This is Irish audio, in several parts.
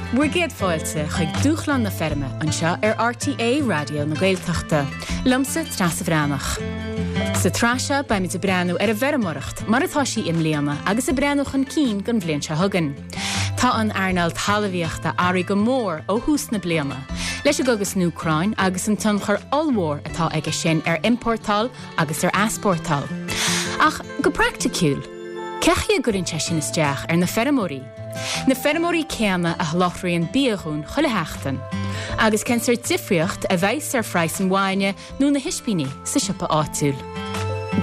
Bhur gcéad fáilte chuig Dúshlán na Feirme anseo ar RTÉ Raidió na Gaeltachta. Liomsa Treasa Bhreathnach. Sa tsraith seo beimid ag breathnú ar an bhfeirmeoireacht mar atá sí i mbliana agus ag breathnú chun cinn don bhliain seo chugainn. Tá an earnáil talmhaíochta athraithe go mór ó thús na bliana, leis an gcogadh san Úcráin agus an tionchar ollmhór atá aige sin ar iompórtáil agus ar easpórtáil. Ach go praiticiúil, cé chaoi a gcuireann sé sin isteach ar na feirmeoirí? Na feirmeoirí céanna a sholáthraíonn bia dhúinn chuile sheachtain. Agus cén sórt difríocht a bheas ar phraghas an bhainne nó na hispíní sa siopa áitiúil?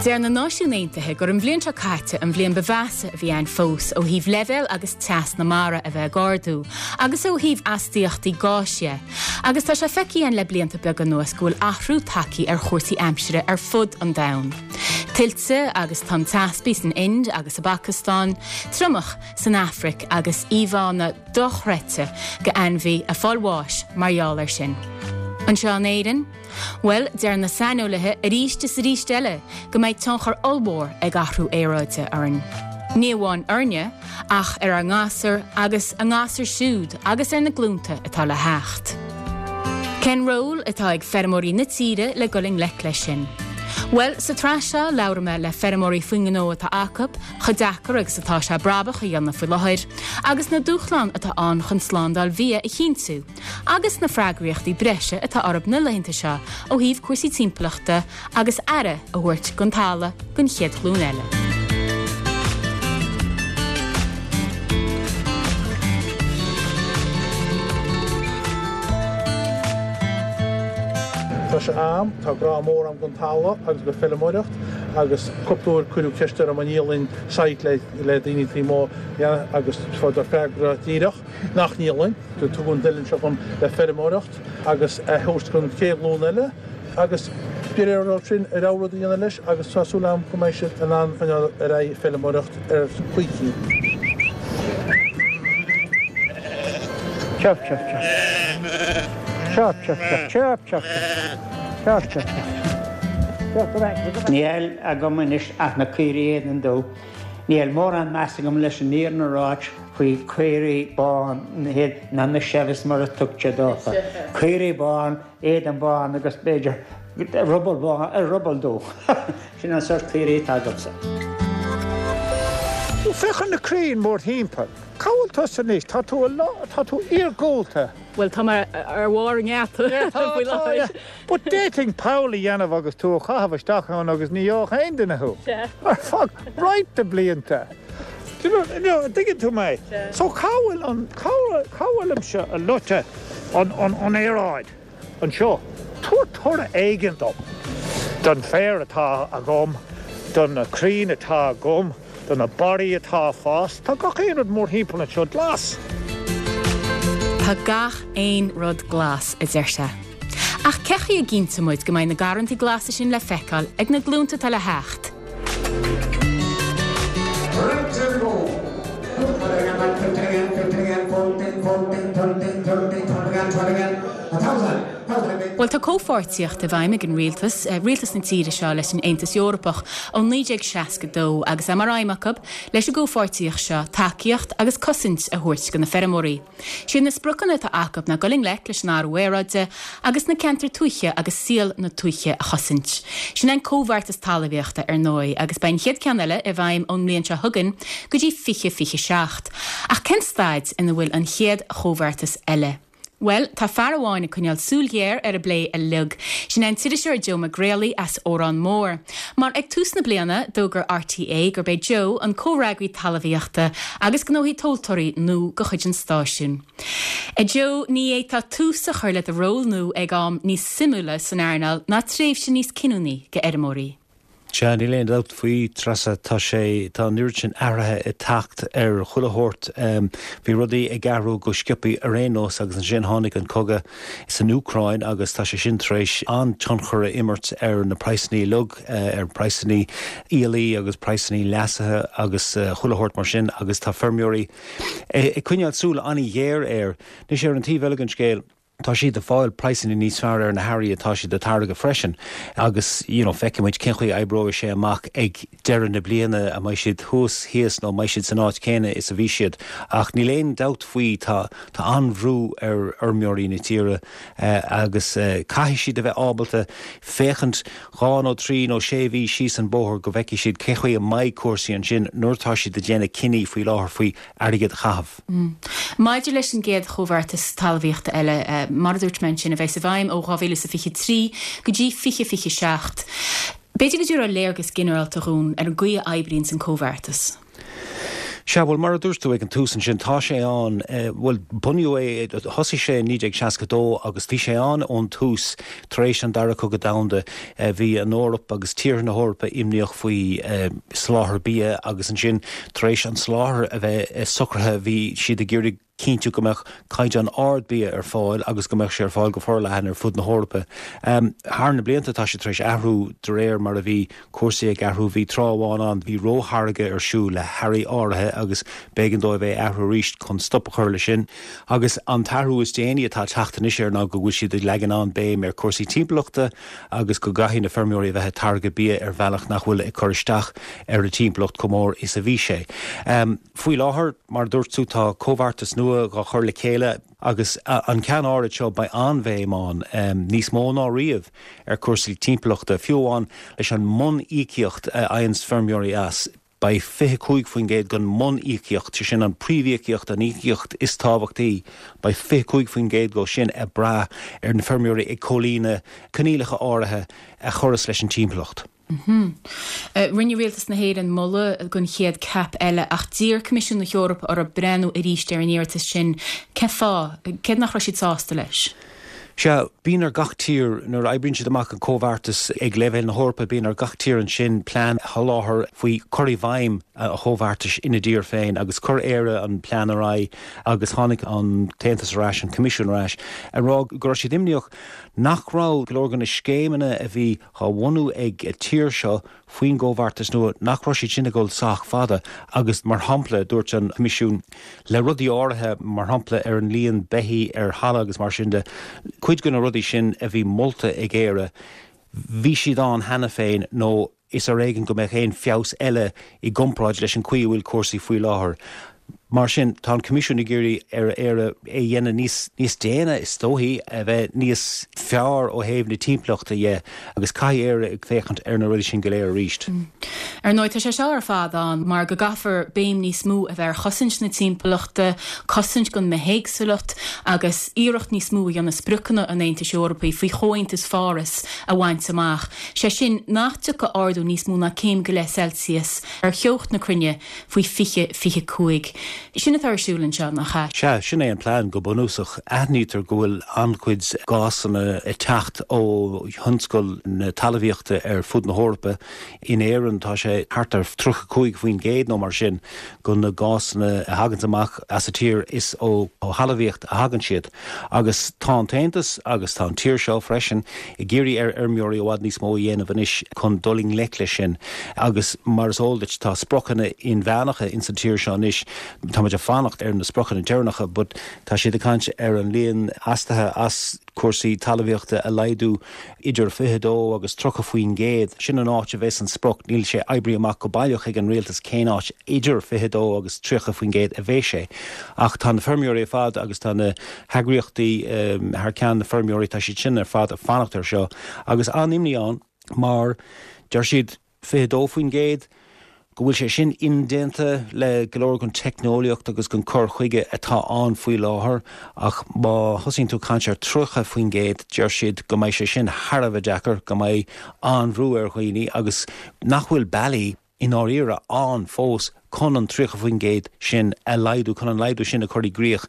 Deir na Náisiúin Aontaithe gur an bhliain seo caite an bhliain ba mheasa a bhí ann fós ó thaobh leibhéal agus teas na mara a bheith ag ardú agus ó thaobh astaíochtaí gáis dhe. Agus tá sé feicthe againn le blianta beaga anuas go bhfuil athrú tagtha ar chúrsaí aimsire ar fud an domhain. Tuilte agus tonn teaspaigh san Ind agus sa bPacastáin, triomach san Afraic agus íomhánna dochreidte de ainmhithe ag fáil bháis mar gheall air sin. Anseo in Éirinn? Bhuel, deir na saineolaithe arís is arís eile go mbeidh tionchar ollmhór ag athrú aeráide orainn. Ní amháin orainne, ach ar ár ngasúir agus a ngasúir siúd agus ar na glúnta atá le theacht. Cén ról atá ag feirmeoirí na tíre le dul i ngleic leis sin? Bhuel, sa tsraith seo labhróidh mé le feirmeoirí faoin ngnó atá acu, chomh deacair agus atá sé brabach a dhéanamh faoi láthair, agus na dúshláin atá ann chun slándáil bhia a chinntiú, agus na freagraíochtaí breise atá orthu na laethanta seo ó thaobh cúrsaí timpeallachta agus aire a thabhairt don talamh don chéad ghlúin eile. Tá sé a'm, tá grá mór a'm don talamh agus don feilméaracht agus cúpla uair cuireadh ceist orm an ndíolfainn site le le daoine taobh amuigh agus fuaireadar freagra díreach nach ndíolfainn. Tugadh an oileán seo dhom le feirmeoireacht agus a thabhairt don chéad ghlúin eile agus de réir orthu sin a rogha rud a dhéanamh leis agus tá súil a'm go mbeidh siad in ann coinneáil ar aghaidh ag feilméaracht ar choíchin. Chirp chirp chirp. Chirp chirp chirp chirp chirp chirp chirp chirp chirp. Níl agam anois ach na caoirigh éadan dubh. Níl mórán meas agam leis an fhírinne a ráit faoi caoirigh bán ná na Chevys mar a tugtar dófa. Caoirigh bán, éadan bán agus b'fhéidir ruball bán, ruball dubh. Sin an sórt caoirigh atá agamsa. Ó, féach ar na crainn mórthimpeall. Cá bhfuil tusa anois? Tá tú i lár, tá tú iargúlta. Bhuel, tá mé ar bharr an gheata faoi láthair. But d'fhéadfainn poll a dhéanamh agus tú a chaitheamh isteach ann agus ní gheobhadh aon duine thú. Ar feadh roinnt de blianta. Do you know, you know, an dtuigeann tú mé? So cá bhfuil an, cá bhfuilimse a loite an, an, an aeráid? anseo. Tabhair toradh éigin dom, don féar atá agam, do na crainn atá agam, do na barraí atá ag fás. Tá gach aon rud mórthimpeall anseo glas. Tá gach aon rud glas, a deir sé. Ach cé chaoi a gcinnteoidh muid go mbeidh na garrantaí glasa sin le feiceáil ag na glúnta atá le theacht? Bhuel, tá comhpháirtíocht i bhfeidhm ag an rialtas, rialtas na tíre seo leis an Aontas Eorpach ó 1962 agus é mar aidhm acu leis an gcomhpháirtíocht seo tacaíocht agus cosaint a thabhairt do na feirmeoirí. Siad na spriocanna atá acu ná dul i ngleic leis an athrú aeráide agus na ceantair tuaithe agus saol na tuaithe a chosaint. Sin é an Comhbheartas Talmhaíochta, ar ndóigh, agus beidh an chéad ceann eile i bhfeidhm ón mbliain seo chugainn go dtí 2027. Ach cén staid ina bhfuil an chéad chomhbheartas eile? Bhuel, tá fear amháin ag coinneáil súil ghéar ar an bplé uilig. Sin é an t-iriseoir Joe Mac Greallaigh as Órán Mór. Mar ag tús na bliana, d'fhógair RTÉ gurb é Joe an comhfhreagraí talmhaíochta agus gnóthaí tomhaltóirí nua de chuid an stáisiúin. A Joe, ní fhéadfá tús a chur le do ról nua ag am níos suimiúla san earnáil ná tréimhse níos cinniúnaí do fheirmeoirí. Sea, níl aon dabht faoi, Treasa, tá sé, tá an oiread sin athraithe ag teacht ar chuile shórt. Bhí rudaí ag athrú go sciobthaí ar aon nós agus ansin tháinig an cogadh san Úcráin agus tá sé sin tar éis an-tionchar a imirt ar na praghsanna uilig, ar praghsanna aoiligh agus praghsanna leasaithe agus chuile shórt mar sin agus tá feirmeoirí ag coinneáil súil an-ghéar air. Anois ar an taobh eile den scéal. Tá siad ag fáil praghsanna níos fearr ar na hearraí atá siad ag táirgeadh freisin agus you know feicfidh muid cén chaoi a oibreoidh sé amach ag deireadh na bliana, an mbeidh siad thuas, thíos nó an mbeidh siad san áit chéanna is a bhí siad. Ach níl aon dabht faoi tá tá an-bhrú ar fheirmeoirí na tíre agus caithfidh siad a bheith ábalta féachaint dhá nó trí nó sé mhí síos an bóthar go bhfeicfidh siad cén chaoi a mbeidh cúrsaí ansin nuair atá siad ag déanamh cinní faoi láthair faoi airgead a chaitheamh. Maidir leis an gcéad chomhbheartas talmhaíochta eile, mar a dúirt mé ansin, a bheas i bhfeidhm ó 2023 go dtí 2027, b'fhéidir go dtabharfá léargas ginearálta dhúinn ar an gcaoi a oibríonns an comhbheartas. Sea, bhuel, mar a dúirt tú ag an tús ansin, tá sé ann, bhuel, bunaíodh é, thosaigh sé in 1962 agus bhí sé ann ón tús tar éis an Dara Cogadh Domhanda. Bhí an Eoraip agus tíortha na hEorpa imníoch faoi soláthar bia agus ansin tar éis an soláthar a bheith socraithe bhí siad ag iarraidh cinntiú go mbeadh caighdeán ard bia ar fáil agus go mbeadh sé ar fáil go forleathan ar fud na hEorpa. Thar na blianta tá sé tar éis athrú de réir mar a bhí cúrsaí ag athrú. Bhí tráth amháin ann bhí rótháirgeadh ar siúl le hearraí áirithe agus b'éigean dóibh é a athrú arís chun stop a chur leis sin. Agus an t-athrú is déanaí atá ag teacht anois air ná go bhfuil siad ag leagan an-béim ar chúrsaí timpeallachta agus go gcaithfidh na feirmeoirí a bheith ag táirgeadh bia ar bhealach nach bhfuil ag cur isteach ar an timpeallacht chomh mór is a bhí sé. Faoi láthair, mar a dúirt tú, tá comhbheartas nua dhá chur le chéile agus an ceann áirid seo beidh an-bhéim ann, níos mó ná riamh, ar chúrsaí timpeallachta, fiú amháin leis an mbun-íocaíocht a fhaigheanns feirmeoirí as. Beidh 25% den mbun-íocaíocht, sé sin an príomhíocaíocht, an íocaíocht is tábhachtaí, beidh 25% dhó sin ag brath ar na feirmeoirí ag comhlíonadh coinníollacha áirithe a chuireas leis an timpeallacht. Rinne Rialtas na hÉireann moladh don chéad CAP eile ach d'iarr Coimisiún na hEorpa orthu breathnú arís ar an iarratas sin. Cén fáth? Céard nach raibh siad sásta leis? Sea, bíonn ar gach tír, nuair a oibríonn siad amach an comhbheartas ag leibhéal na hEorpa, bíonn ar gach tír ansin plean a sholáthar faoi chur i bhfeidhm an chomhbheartais ina dtír féin agus chuir Éire an plean ar aghaidh agus tháinig an tAontas ar ais, an Coimisiún ar ais, ag rá go raibh siad imníoch nach raibh go leor de na scéimeanna a bhí á bhunú ag an tír seo faoin gcomhbheartas nua, nach raibh siad sin ag dul sách fada agus, mar shampla, dúirt an Coimisiún, le rudaí áirithe, mar shampla ar an líon beithí ar thalamh agus mar sin de, cuid de na rudaí sin a bhí molta ag Éire, bhí siad ann cheana féin nó is ar éigean go mbeadh aon feabhas eile i gcomparáid leis an chaoi a bhfuil cúrsaí faoi láthair. Mar sin, tá an Coimisiún ag iarraidh ar Éire é a dhéanamh níos, níos déine, is dóichí, a bheith níos fearr ó thaobh na timpeallachta dhe agus caithfidh Éire ag féachaint ar na rudaí sin go léir arís. Ar ndóigh, tá sé seo ar fad ann mar go gcaithfear béim níos mó a bheith ar chosaint na timpeallachta, cosaint don mbithéagsúlacht agus iarracht níos mó a dhéanamh spriocanna an Aontais Eorpaigh faoi Chomhaontas Pháras a bhaint amach, sé sin nach dtiocfaidh ardú níos mó ná céim go leith Celsius ar theocht na cruinne faoi 2025. Sin atá ar siúl anseo, nach ea? Sea, sin é an plean go bunúsach. Aithnítear go bhfuil an-chuid gásanna ag teacht ó thionscal na talmhaíochta ar fud na hEorpa. In Éirinn tá sé thart ar 35% nó mar sin de na gásanna a thaganns amach as an tír is ó thalmhaíocht a thagann siad. Agus tá an tAontas agus tá an tír seo freisin ag iarraidh ar fheirmeoirí i bhfad níos mó a dhéanamh anois chun dul i ngleic leis sin agus mar is eol duit tá spriocanna inmheánacha ins an tír seo anois, tá muid ag fanacht ar na spriocanna deireanacha but tá siad ag caint ar an líon astuithe as cúrsaí talmhaíochta a laghdú idir 22 agus 30%. Sin an áit a bheas an sprioc, níl sé oibrithe amach go baileach ag an rialtas cén áit idir 22 agus 30% a bheas sé. Ach tá na feirmeoirí ar fad agus tá na heagraíochtaí thar ceann na feirmeoirí, tá siad sin ar fad ag fanacht air seo agus an-imní ann mar deir siad 22% go bhfuil sé sin indéanta le go leor den teicneolaíocht agus den cur chuige atá ann faoi láthair ach má thosaíonn tú ag caint ar 30% deir siad go mbeidh sé sin thar a bheith deacair, go mbeidh an-bhrú ar dhaoine agus nach bhfuil bealaí i ndáiríre ann fós chun an 30% sin a laghdú, chun an laghdú sin a chur i gcrích.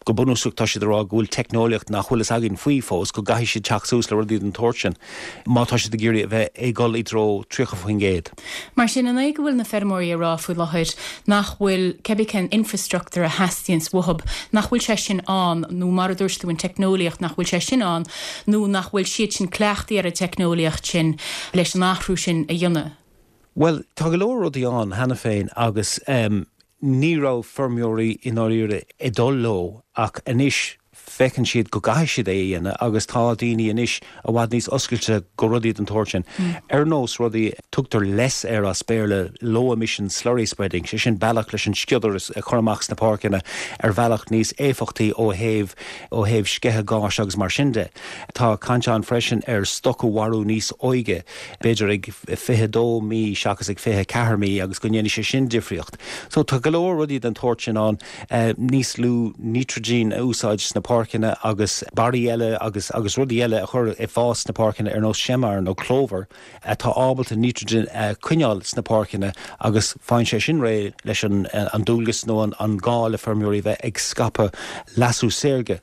Go bunúsach tá siad ag rá go bhfuil teicneolaíocht nach bhfuil fhios againn faoi fós, go gcaithfidh siad teacht suas le rudaí den tsórt sin má tá siad ag iarraidh a bheith ag dul i dtreo 30%. Mar sin, an é go bhfuil na feirmeoirí ag rá faoi láthair nach bhfuil cibé cén infreastruchtúr a theastaíonns uathub, nach bhfuil sé sin ann, nó mar a dúirt tú an teicneolaíocht, nach bhfuil sé sin ann, nó nach bhfuil siad sin cleachtaithe ar an teicneolaíocht sin leis an athrú sin a dhéanamh? Bhuel, tá go leor rudaí ann cheana féin agus ní raibh feirmeoirí i ndáiríre ag dul leo ach anois. Feiceann siad go gcaithfidh siad é a dhéanamh agus tá daoine anois i bhfad níos oscailte go rudaí den tsórt sin. Ar nós rudaí, tugtar LESS air as Béarla, Low Emission Slurry Spreading, sé sin bealach leis an sciodar a chur amach sna páirceanna ar bhealach níos éifeachtaí ó thaobh ó thaobh sceitheadh gáis agus mar sin de. Tá caint ann freisin ar stoc a mharú níos óige, b'fhéidir ag 22 mí seachas ag 24 mí agus go ndéanfaidh sé sin difríocht. So tá go leor rudaí den tsórt sin ann. níos lú nítrigine a úsáid sna páirceanna agus barraí eile agus agus rudaí eile a chur ag fás sna páirceanna ar nós seamar nó clover atá ábalta nítrigine a choinneáil sna páirceanna agus faigheann sé sin réidh leis an an dualgas nó an an gá le feirmeoirí bheith ag scaipeadh leasú saorga.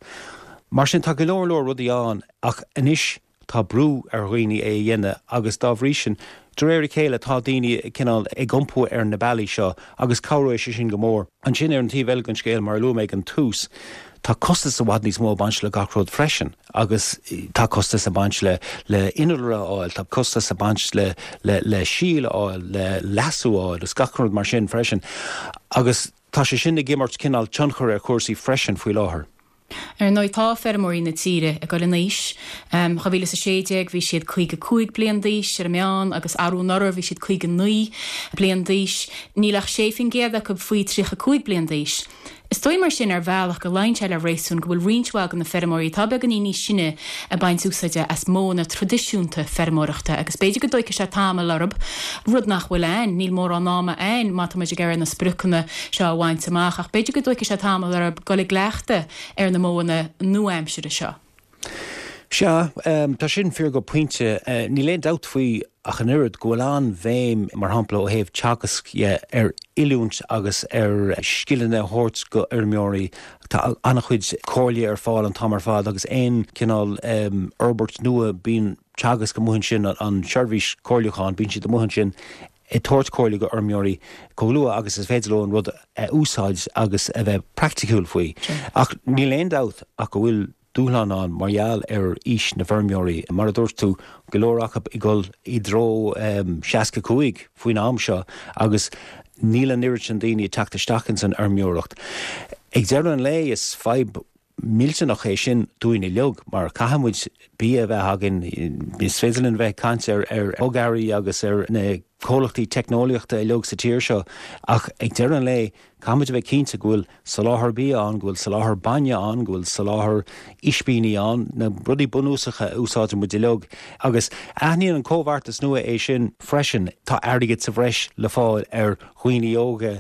Mar sin tá go leor leor rudaí ann ach anois Tá brú ar dhaoine é a dhéanamh agus dá bhrí sin, de réir a chéile, tá daoine cineál ag iompú ar na bealaí seo agus cabhróidh sé sin go mór. Ansin, ar an taobh eile den scéal, mar a luaigh mé ag an tús, tá costas i bhfad níos mó ag baint le gach rud freisin agus tá costas ag baint le le innealra a fháil, tá costas ag baint le le le síol a fháil, le leasú a fháil agus gach rud mar sin freisin agus tá sé sin ag imirt cineál tionchar ar chúrsaí freisin faoi láthair. Ar ndóigh, tá feirmeoirí na tíre ag dul in aois. 2016 bhí siad 55 bliain d'aois ar an meán agus arú anuraidh bhí siad 59 bliain d'aois. Níl ach 6% acu faoi 35 bliain d'aois. Is dóigh mar sin ar bhealach go luíonn sé le réasún go bhfuil roinnt mhaith de na feirmeoirí atá beagáinín níos sine ag baint úsáide as modhanna traidisiúnta feirmeoireachta agus b'fhéidir go dtóigfidh sé tamall orthu, rud nach bhfuil ann, níl mórán ama ann má tá muid ag iarraidh na spriocanna seo a bhaint amach ach b'fhéidir go dtóigfidh sé tamall orthu dul i gcleachtadh ar na modhanna nua-aimsire seo. Sea, tá sin fíor go pointe. Níl aon dabht faoi ach an oiread go bhfuil an-bhéim, mar shampla, ó thaobh Teagasc dhe, ar oiliúint agus ar scileanna a thabhairt go fheirmeoirí. Tá an-chuid comhairle ar fáil an t-am ar fad agus aon chineál fhorbairt nua, bíonn Teagasc amuigh ansin, an tseirbhís comhairliúcháin, bíonn siad amuigh ansin ag tabhairt comhairle go fheirmeoirí chomh luath agus is féidir leo an rud a úsáid agus a bheith praiticiúil faoi. Ach níl aon dabht ach go bhfuil dúshlán ann mar gheall ar aois na bhfeirmeoirí. Mar a dúirt tú, go leor acu ag dul i dtreo 65 faoin am seo agus níl an oiread sin daoine ag teacht isteach ins an fheirmeoireacht. Ag deireadh an lae is fadhb millteanach é sin dúinn uilig mar caithfidh muid bia a bheith againn. Is féidir linn bheith ag caint ar ar bhogearraí agus ar na comhlachtaí teicneolaíochta uilig sa tír seo ach ag deireadh an lae caithfidh muid a bheith cinnte go bhfuil soláthar bia ann, go bhfuil soláthar bainne ann, go bhfuil soláthar ispíní ann, na rudaí bunúsacha a úsáideann muid uilig. Agus aithníonn an comhbheartas nua é sin freisin. Tá airgead sa bhreis le fáil ar dhaoine óga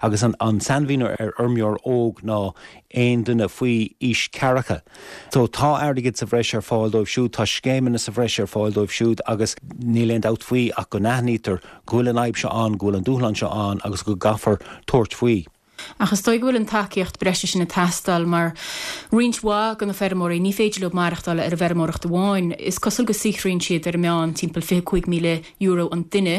agus an sainmhíniú ar fheirmeoir óg ná aon duine faoi aois ceathracha. So tá airgead sa bhreis ar fáil dóibh siúd, tá scéimeanna sa bhreis ar fáil dóibh siúd agus níl aon dabht faoi ach go n-aithnítear go bhfuil an fhadhb seo ann, go bhfuil an dúshlán seo ann agus go gcaithfear tabhairt faoi. Ach is dóigh go bhfuil an tacaíocht breise sin ag teastáil mar roinnt mhaith de na feirmeoirí, ní féidir leo maireachtáil ar an bhfeirmeoireacht amháin. Is cosúil go saothraíonn siad ar an meán timpeall €25,000 an duine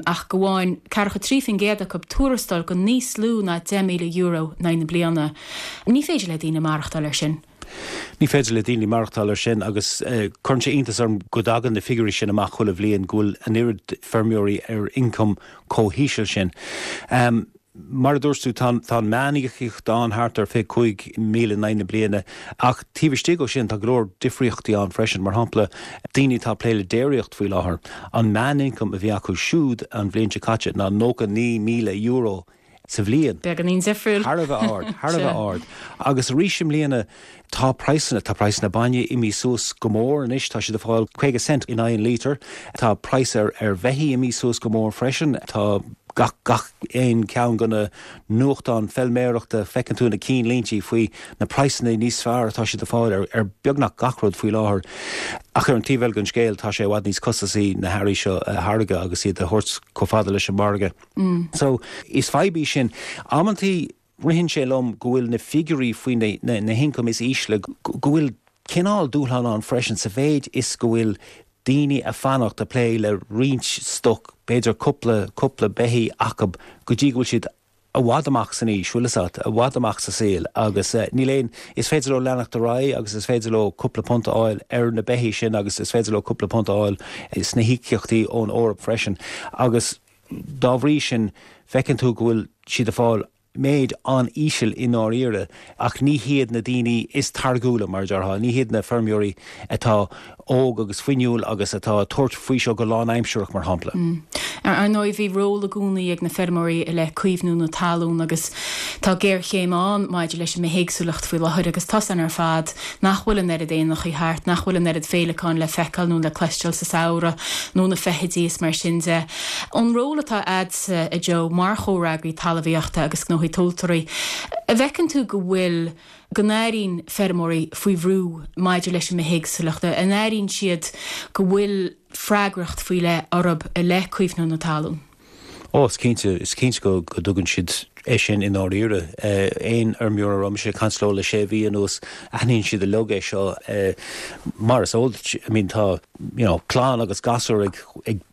ach go bhfaigheann ceathracha 3% acu tuarastal go níos lú ná €10,000 in aghaidh na bliana. Ní féidir le daoine maireachtáil ar sin. Ní féidir le daoine maireachtáil ar sin agus cuireann sé iontas orm go dtagann na figiúirí sin amach chuile bhliain, go bhfuil an oiread feirmeoirí ar ioncam chomh híseal sin. Mar a dúirt tú, tá an meán-íocaíocht ann thart ar 25,000 in aghaidh na bliana, ach taobh istigh ó sin tá go leor difríochtaí ann freisin. Mar shampla, daoine atá ag plé le déiríocht faoi láthair, an meán-ioncam a bhí acu siúd an bhliain seo caite ná €99,000 sa bhliain. Beagáinín difriúil. Thar a bheith ard, thar a bheith ard. Agus arís i mbliana, tá praghsanna, tá praghsanna bainne imithe suas go mór anois, tá siad ag fáil 50 cent in aghaidh an lítir. Tá praghas ar ar bheithígh imithe suas go mór freisin. Tá gach, gach aon cheann de na nuachtáin feilméarachta, feiceann tú na cinnlíntí faoi na praghsanna níos fearr atá siad ag fáil ar ar beagnach gach rud faoi láthair. Ach ar an taobh eile den scéal, tá sé i bhfad níos costasaí na hearraí seo a tháirgeadh agus iad a thabhairt chomh fada leis an margadh. So, is fadhb í sin. Amantaí, ritheann sé liom go bhfuil na figiúirí faoi na na hioncaim is ísle, go bhfuil cineál dúshlán ann freisin sa mhéid is go bhfuil daoine ag fanacht ag plé le roinnt stoc, b'fhéidir cúpla, cúpla beithígh acu go dtí go bhfuil siad i bhfad amach san aois, bhfuil fhios a't, i bhfad amach sa saol agus níl aon, is féidir leo leanacht ar aghaidh agus is féidir leo cúpla punt a fháil ar na beithígh sin agus is féidir leo cúpla punt a fháil sna híocaíochtaí ón Eoraip freisin agus dá bhrí sin feiceann tú go bhfuil siad ag fáil. méid an-íseal i ndáiríre, ach ní hiad na daoine is táirgiúla, mar a déarfá, ní hiad na feirmeoirí atá óg agus fuinniúil agus atá ag tabhairt faoi seo go lánaimsearach, mar shampla. Ar ndóigh, bhí ról i gcónaí ag na feirmeoirí i leith caomhnú na talún agus tá géarchéim ann maidir leis an mbithéagsúlacht faoi láthair agus tá a fhios againn ar fad nach bhfuil an oiread éanachaí thart, nach bhfuil an oiread féileacán le feiceáil nó le cloisteáil sa samhradh nó na feithidí is mar sin de. An ról atá a'dsa, a Joe, mar chomhfhreagraí talmhaíochta agus gnóthaí tomhaltóirí, an bhfeiceann tú go bhfuil, go n-airíonn feirmeoirí faoi bhrú maidir leis an mbithéagsúlacht, an airíonn siad go bhfuil freagracht faoi leith orthu i leith caomhnú na talún? Ó, is cinnte, is cinnte go dtuigeann siad é sin i ndáiríre. Aon fheirmeoir a raibh mise ag caint leo le sé mhí anuas, aithníonn siad uilig é seo. Mar is eol duit, I mean, tá, you know, clann agus gasúir ag,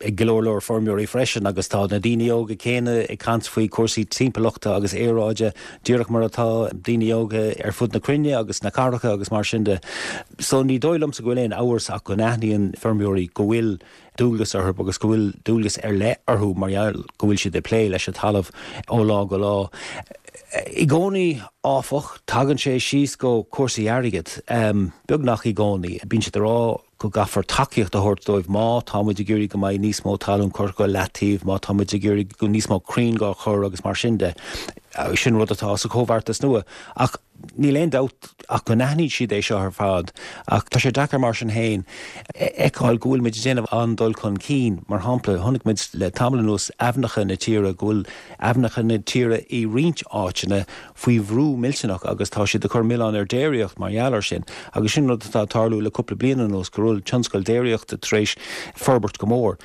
ag go leor leor feirmeoirí freisin agus tá na daoine óga céanna ag caint faoi chúrsaí timpeallachta agus aeráide díreach mar atá daoine óga ar fud na cruinne agus sna cathracha agus mar sin de. So ní dóigh liomsa go bhfuil aon amhras ach go n-aithníonn feirmeoirí go bhfuil dualgas orthu agus go bhfuil dualgas ar leith orthu mar gheall go bhfuil siad ag plé leis an talamh ó lá go lá. I gcónaí, áfach, tagann sé síos go cúrsaí airgid, beagnach i gcónaí. Bíonn siad ag rá go gcaithfear tacaíocht a thabhairt dóibh má tá muid ag iarraidh go mbeidh níos mó talún curtha go leataobh, má tá muid ag iarraidh go níos mó crainn dhá chur agus mar sin de. Sin rud atá sa chomhbheartas nua. Ach Níl aon dabht ach go n-aithníonn siad é seo ar fad, ach tá sé deacair mar sin féin a fheiceáil go bhfuil muid ag déanamh an-dul chun cinn. Mar shampla, chonaic muid le tamall anuas aibhneacha na tíre, go bhfuil aibhneacha na tíre i roinnt áiteanna faoi bhrú millteanach agus tá siad ag cur milleán ar déiríocht mar gheall air sin. Agus sin rud atá ag tarlú le cúpla bliain anuas, go bhfuil tionscal déiríochta tar éis forbairt go mór.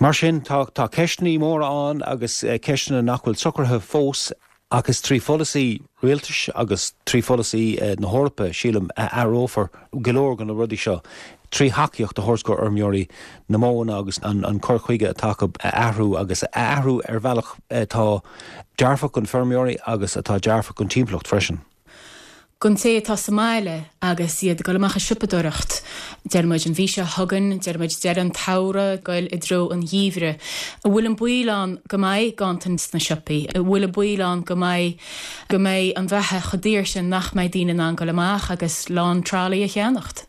Mar sin, tá ceisteanna móra ann agus ceisteanna nach bhfuil socraithe fós. Ach is trí pholasaí rialtais agus trí pholasaí na hEorpa, sílim, a athrófar go leor de na rudaí seo, trí thacaíocht a thabhairt go fheirmeoirí, na modhanna agus an cur chuige atá acu a athrú agus a athrú ar bhealach atá dearfach don feirmeoirí agus atá dearfach don timpeallacht freisin. Don té atá sa mbaile agus iad ag dul amach ag siopadóireacht, deir muid an mhí seo chugainn, deir muid deireadh an tsamhraidh, ag goil i dtreo an gheimhridh, an bhfuil an baol ann go mbeidh ganntan sna siopaí? An bhfuil an baol ann go mbeidh, go mbeidh an bheatha chomh daor sin nach mbeidh daoine in ann goil amach agus lán tralaí a cheannacht?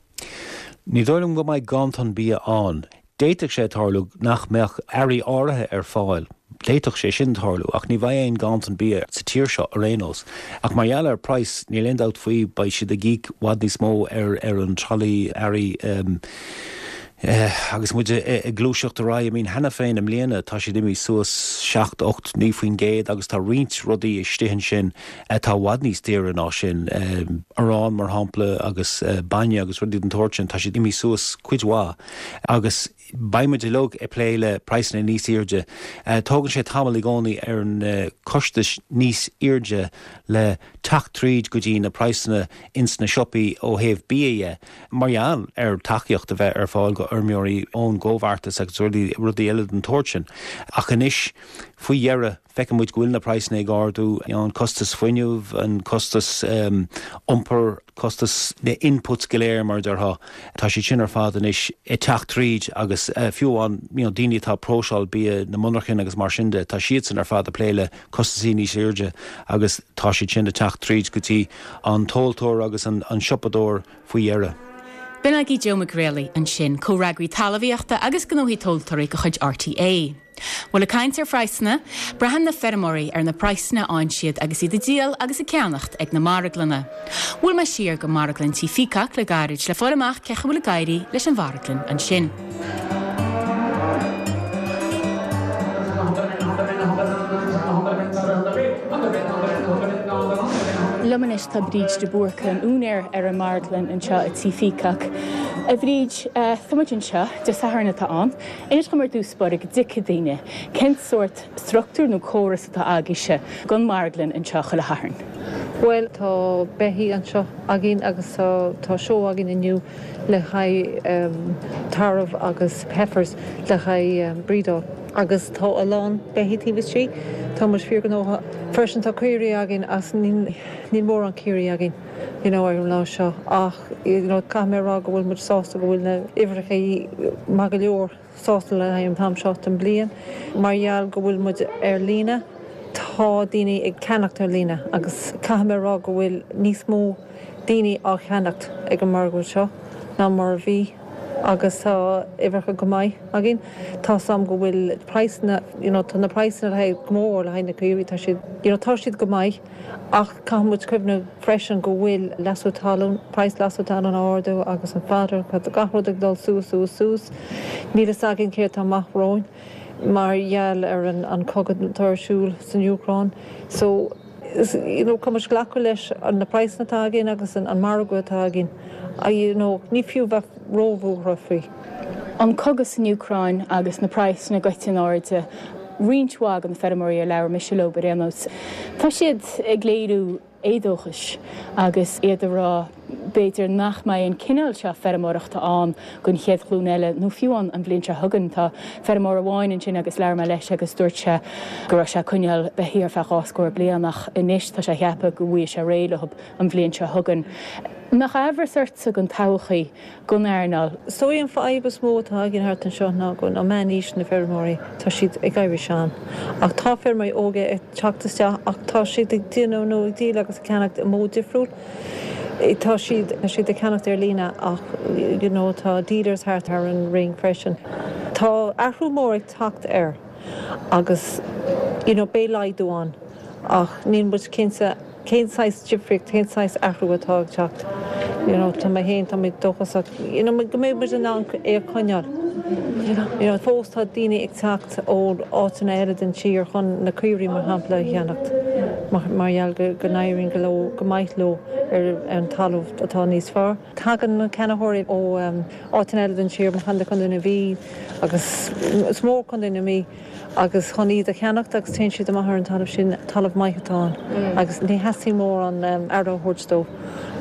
Ní dóigh liom go mbeidh ganntan bia ann. D'fhéadfadh sé tarlú nach mbeadh earraí áirithe ar fáil, d'fhéadfadh sé sin tarlú, ach ní bheidh aon ganntan bia sa tír seo ar aon nós. Ach mar gheall ar praghas, níl aon dabht faoi, beidh siad ag íoc i bhfad níos mó ar ar an tralaí earraí agus muid ag gluaiseacht ar aghaidh. I mean, cheana féin i mbliana tá siad imithe suas 7, 8, 9% agus tá roinnt rudaí istigh ansin atá i bhfad níos daoire ná sin, arán mar shampla agus bainne agus rudaí den tsórt sin, tá siad imithe suas cuid mhaith. Agus beidh muid uilig ag plé le praghsanna níos airde. Tógann sé tamall i gcónaí ar na costais níos airde le teacht tríd go dtí na praghsanna ins na siopaí ó thaobh bia dhe, mar gheall ar tacaíocht a bheith ar fáil go fheirmeoirí ón gcomhbheartas agus rudaí eile den tsórt sin. Ach anois, faoi dheireadh, Feiceann muid go bhfuil na praghsanna ag ardú, an costas fuinnimh, an costas iompair, costas na inputs go léir mar a déarfá, tá siad sin ar fad anois ag teacht tríd agus fiú amháin you know daoine atá ag próiseáil bia, na monarchain agus mar sin de, tá siadsan ar fad ag plé le costasaí níos airde agus tá siad sin ag teacht tríd go dtí an tomhaltóir agus an siopadóir faoi dheireadh. B'in agaibh Joe Mac Grealaigh ansin, comhfhreagraí talmhaíochta agus gnóthaí tomhaltóirí de chuid RTÉ. Bhuel, ag caint ar phraghsanna, braitheann na feirmeoirí ar na praghsanna a fhaigheann siad agus iad ag díol agus ag ceannacht ag na marglanna. Bhuail mé siar go marglann Tí Pheacock le gairid le fáil amach cén chaoi a bhfuil ag éirí leis an mharglann ansin. Liom anois tá Bríd de Búrca, an úinéir ar an marglann anseo i Tí Pheacock. A Bhríd, tá muid anseo, Dé Sathairn atá ann. Inis dom ar dtús báire go dtuigfidh daoine cén sórt struchtúr nó córas atá agaibhse don marglann anseo chuile Shatharn. Bhuel, tá beithígh anseo againn agus tá seó againn inniu le haghaidh tarbh agus heifers le haghaidh brídeáil. Agus tá a lán beithígh taobh istigh. Tá muid fíorghnóthach. Freisin tá caoirigh againn ach níl mórán caoirigh againn you know ar an lá seo ach you know caithfidh mé a rá go bhfuil muid sásta go bhfuil na uimhreacha maith go leor sásta le haghaidh an t-am seo den bliain. Mar gheall go bhfuil muid ar líne. Tá daoine ag ceannacht ar líne agus caithfidh mé a rá go bhfuil níos mó daoine á cheannacht ag an margadh seo ná mar a bhí agus tá uimhreacha go maith againn. Tá 's a'm go bhfuil praghsanna, you know, tá na praghsanna le haghaidh, go mór le haghaidh na caoirigh, tá siad, you know, tá siad go maith ach caithfidh muid cuimhneamh freisin go bhfuil leasú talún, praghas leasú talún á ardú agus an fodder, tá gach rud ag dul suas, suas, suas. Níl fhios againn céard tá amach romhainn mar gheall ar an cogadh atá ar siúl san Úcráin. So, you know, caithfidh muid glacadh leis na praghsanna atá againn agus an margadh atá againn. You know, ní fiú bheith róbhuartha faoi. An cogadh san Úcráin agus na praghsanna goite in airde, roinnt mhaith de na feirmeoirí ar labhair mise leo ar aon nós, tá siad ag léiriú éadóchais agus iad ag rá b'fhéidir nach mbeidh an cineál seo feirmeoireachta ann don chéad ghlúin eile nó fiú ann an bhliain seo chugainn. Tá feirmeoir amháin ansin agus labhair mé leis agus dúirt sé go raibh sé ag coinneáil beithígh ar feadh 20 bliain ach anois tá sé ag ceapadh go bhfaighidh sé réidh leo an bhliain seo chugainn. An mbeadh aimhreas ortsa don todhchaí don earnáil? Is dóigh an fadhb is mó atá againn thart anseo ná go bhfuil meánaois na bhfeirmeoirí, tá siad ag éirí sean. Ach tá feirmeoirí óga ag teacht isteach ach tá siad ag déanamh nó ag díol agus ag ceannacht i modh difriúil. Tá siad, tá siad ag ceannacht ar líne ach you know tá dealers thart ar an ring freisin. Tá athrú mór ag teacht air agus you know beidh laghdú ann ach níl muid cinnte cén saghas difríocht, cén saghas athrú atá ag teacht. You know tá mé féin, tá mé dóchasach you know go mbeidh muid in ann é a choinneáil. You know fós tá daoine ag teacht ó áiteanna eile den tír chun na caoirigh mar shampla a cheannacht mar gheall go n-éiríonn go leo go maith leo ar an talamh atá níos fearr. Tagann na ceannaitheoirí ó áiteanna eile den tír mar shampla Contae na Mí agus is mór Contae na Mí agus chun iad a cheannacht agus téann siad amach ar an talamh sin, talamh maith atá ann agus ní theastaíonn mórán aire a thabhairt dó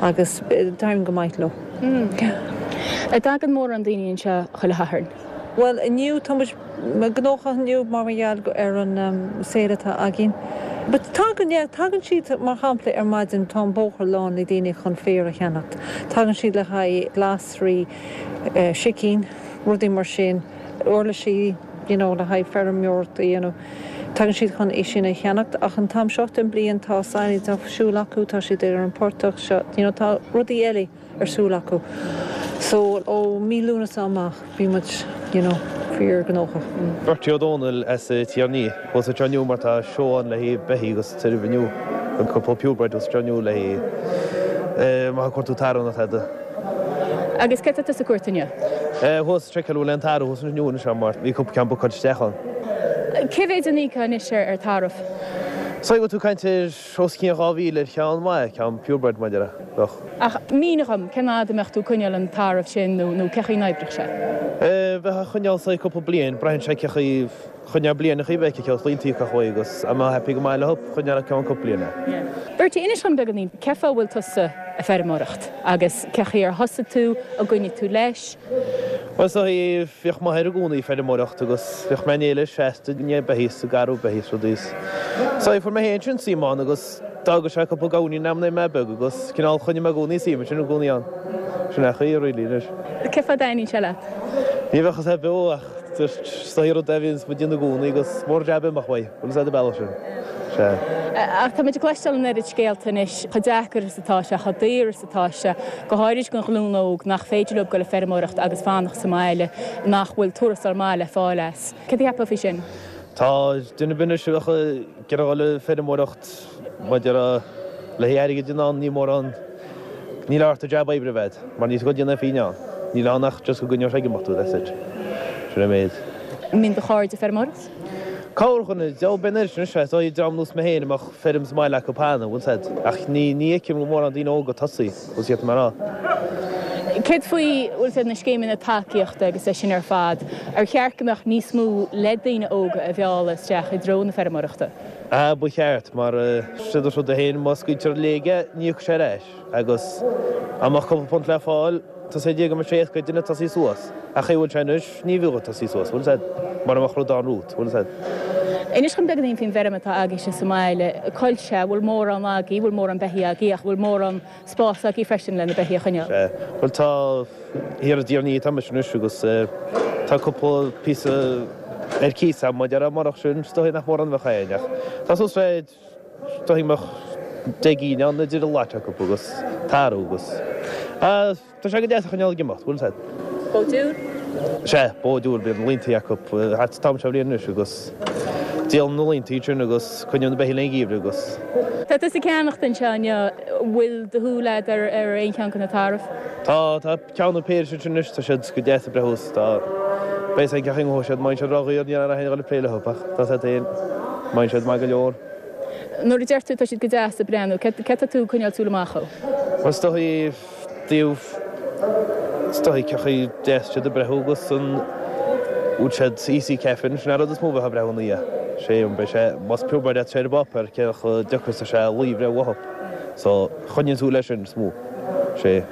agus d'éiríonn go maith leo. An dtagann mórán daoine anseo chuile Shatharn? Bhuel inniu tá muid gnóthach inniu mar gheall ar an sale atá againn. But tagann, yeah, tagann siad mar shampla ar maidin tá an bóthar lán le daoine chun féar a cheannacht. Tagann siad le haghaidh glasraí, sicín, rudaí mar sin, uirlisí, you know, le haghaidh feirmeoireacht a dhéanamh. Tagann siad chun é sin a cheannacht ach an t-am seo den bliain tá silage ar siúl acu, tá siad ar an portach seo, you know, tá rudaí eile ar siúl acu. So ó mí Lúnasa amach bíonn muid, you know, fíor gnóthach. Bertie Ó Dónaill as Tír an Fhia. Thuas anseo inniu mar tá seó ann le haghaidh beithígh agus tairbh inniu. An cúpla purebred thuas anseo inniu le haghaidh má tá cuartú tarbh nó tada. Agus céard atá tusa ag cuartú inniu? Thuas seiceáil bhfuil aon tarbh thuas inniu anseo mar bhí cúpla ceann bookáilte isteach ann. Cé mhéid a n-íocfá anois ar tarbh? So bhfuil tú ag caint ar os cionn 2,000 ar cheann maith, ceann purebred mar a déarfá, bheadh. Ach mínigh dhom, cén fhad a mbeadh tú ag coinneáil an tarbh sin nó nó cé chaoi n-oibreodh sé? Bheifeá ag coinneáil saghas cúpla bliain, braitheann sé cé chaoi Choinneáil bliain a bheith aici cloíonn tú chuig agus a mbeadh happy go maith leo choinneáil ceann cúpla bliain é. Bertie, inis dhom beagáinín, cé fáth a bhfuil tusa ag feirmeoireacht agus cé chaoi ar thosaigh tú, an gcoinnigh tú leis? Bhuel is dóigh, bhíodh m'athair i gcónaí ag feirmeoireacht agus bhíodh mé in éineacht leis seasta i ndiaidh beithígh is ag garrú beithígh is rudaí is so fuair mé féin sin suim ann agus d'fhágadh sé cúpla gamhainín a'm nuair a bhí mé beag agus cineál choinnigh mé i gcónaí suim ansin i gcónaí ann. Sin é an chaoi really anois. Cé fáth a dtaitníonn sé leat? Ní bheadh a fhios beo ach Just is dóigh rud a bhíonns muid ag déanamh i gcónaí agus mór jab imeacht uaidh, bhfuil fhios a'd an bealach sin. Sea. Ach tá muid ag cloisteáil an oiread scéalta anois, chomh deacair is atá sé, chomh daor is atá sé, go háirid don ghlúin óg nach féidir leo dul ag feirmeoireacht agus fanacht sa mbaile, nach bhfuil tuarastal maith le fáil as. Céard a cheapfá faoi sin? Tá duine ar bith anois a bheadh ag iarraidh dul ag feirmeoireacht maidir le haghaidh airgid in ann, ní mórán, níl ort ach jab oibre a bheith a'd, mar níl tú ag déanamh aon phingin ann. Níl ann ach just go gcoinneodh sé ag imeacht thú, that's it. Sin an méid. An mbíonn do chairde ag feirmeoireacht? Corrdhuine, deabhal beidh an oiread sin anois, is dóigh dream nós mé féin a mbeadh feirm sa mbaile acu cheana, bhfuil 's a'd. Ach ní, ní fheicim go mórán daoine óga ag tosaí, bhfuil 's a'd mar a. Céard faoi, bhfuil 's a'd, na scéimeanna tacaíochta agus é sin ar fad, ar cheart go mbeadh níos mó le daoine óga a mhealladh isteach i dtreo na feirmeoireachta? Ah, ba cheart, mar siod an rud é féin, má scaoiltear i léig é, ní íocfaidh sé ar ais, agus dá mbeadh cúpla punt le fáil, tá sé go mbeadh sé éasca ag duine tosaí suas, ach chaoi a bhfuil sé anois, ní bheadh ag tosaí suas, bhfuil 's a'd, mura mbeadh rud ann romhat, bhfuil 's a'd. Inis dhom beagáinín faoin bhfeirm atá agaibhse sa mbaile, coillte, an bhfuil mórán agaibh, bhfuil mórán beithígh agaibh ach bhfuil mórán spás agaibh freisin le na beithígh a choinneáil? Sea, bhuel tá, thiar i dTír an Fhia atá mise anois agus tá cúpla píosa. ar cíos agam, mar a déarfá, murach sin, is dóigh nach mórán a bheadh againn ach tá suas le, is dóigh go mbeadh 10 gcinn ann idir an lot acu agus tarbh agus, ah, tá sé go deas a choinneáil ag imeacht, bhfuil a fhios agat. Bó diúil? Sea, bó diúil, bíonn laontaí acu thart an t-am seo bhliain anois agus díolann na laontaí sin agus coinníonn na beithígh le an gheimhreadh agus. Tá tusa ag ceannacht anseo inniu, bhfuil do shúil agat ar aon cheann de na tairbh? Tá, tá ceann nó péire ansin anois, tá siad go deas ag breith thuas, tá, beidh a fhios ag gach siad, má bhíonn siad ródhaor ní raibh aon dul ag plé leo ach tá siad féin, má bhíonn siad maith go leor. Nuair a deir tú tá siad go deas ag breathnú, céard atá tú ag coinneáil súil amach dhó? Bhuel is dóigh, dtaobh, is dóigh cén chaoi deas siad ag breathnú agus an bhfuil siad easy calving, sin an rud is mó a bheifeá ag breathnú ina dhiaidh. Sé an beidh sé, más purebred atá sé ar an bpáipéar, cé chomh deacair is atá sé lao a bhreith uathu. So, choinníonn tú leis sin is mó. Sé.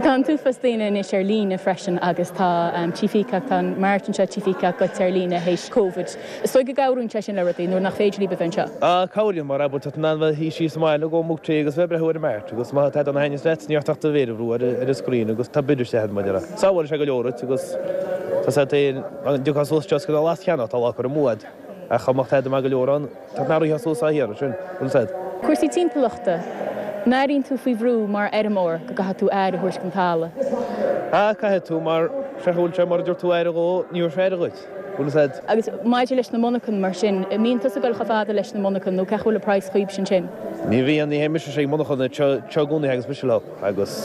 Tá an t-uafás daoine anois ar líne freisin agus tá Tí Peacock, tá an mart anseo Tí Peacock goite ar líne théis Covid. Is dóigh go gcabhraíonn sé sin le rudaí nuair nach féidir libh a bheith anseo. Ah, cabhraíonn, mar abair, tá tú in ann bheith ag suí sa mbaile ag ól mug tae agus bheith ag breathnú ar an mart agus má tá tada a thaitníos leat, ní ort ach do mhéar a bhrú ar an screen agus tá bid isteach agat, mar a déarfá. Sábhálann sé go leor duit agus tá sé féin, an dtiocfá suas anseo is go lá cheana, tá lá curtha amú agat ach chomh maith tada maith go leor ann. Tá na ríthe suas á hiarraidh sin, bhfuil fhios a'd. Cúrsaí timpeallachta, An airíonn tú faoi bhrú mar fheirmeoir go gcaithfidh tú aire a thabhairt don talamh? Ah, caithfidh tú mar sé bhfuil sé mura dtabharfaidh tú aire dhó, ní thabharfaidh sé aire dhuit, bhfuil fhios a'd. Agus maidir leis na monarchana mar sin, an mbíonn tusa ag dul chomh fada leis na monarchana nó cén chaoi a bhfuil an praghas chugaibhse ansin? Ní bhíonn, ní théann mise chuig monarchana, seo i gcónaí a thagas mise leo agus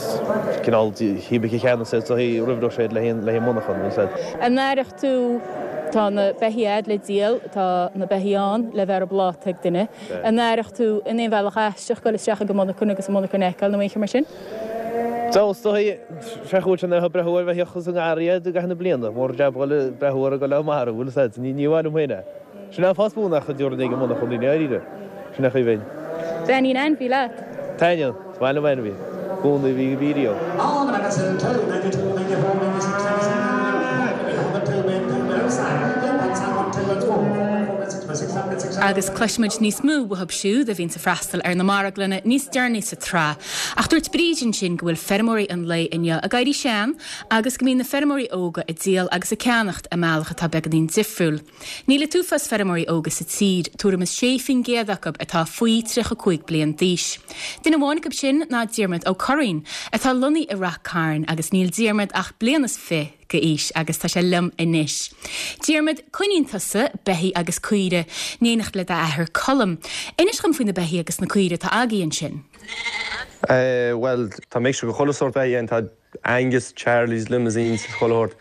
cineál híobaigh a cheannas é so roimh raibh sé le haghaidh monarchan, bhfuil fhios a'd. An aireoidh tú, tá na beithígh a'd le díol, tá na beithígh ann le bheith ar an bpláta ag duine. An aireoidh tú in aon bhealach aisteach dul isteach ag an monarchan agus an monarchan a fheiceáil nó aon cheo mar sin? Dul is dóigh, sé chúil sin a breathnú ar bheithíoch is an ngarraí i gcaitheamh na bliana, mór jab dhul ag breathnú ar a ghoil á marú, bhfuil fhios a'd, ní mhaith liom féin é. Sin an fáth is mó nach dtabharfainn ag an monarchan í ndáiríre. Sin é chaoi bhinn. Taitníonn ainmhí leat? Taitníonn. Is maith liom ainmhí. I gcónaí bhí bhí riamh. Agus cloisfimid níos mó uathub siúd a bhíonns ag freastal ar na marglanna níos deireanaí sa tsraith. Ach dúirt Bríd ansin go bhfuil feirmeoirí an lae inniu ag éirí sean agus go mbíonn na feirmeoirí óga ag díol agus ag ceannacht i mbealach atá beagáinín difriúil. Níl an t-uafás feirmeoirí óga sa tír, tuairim is 6% acu atá faoi 35 bliain d'aois. Duine amháin acu sin ná Diarmuid Ó Curraoin, atá lonnaithe i Rath Cairn agus níl Diarmuid ach bliain is fi d'aois agus tá sé liom anois. Diarmuid, coinníonn tusa beithígh agus caoire in éineacht le d'athair Colm. Inis dhom faoi na beithígh agus na caoire atá agaibh ansin. Bhuel, tá mixture de chuile sórt beithígh ann. Tá Angus, Charlies, Limousins, chuile shórt.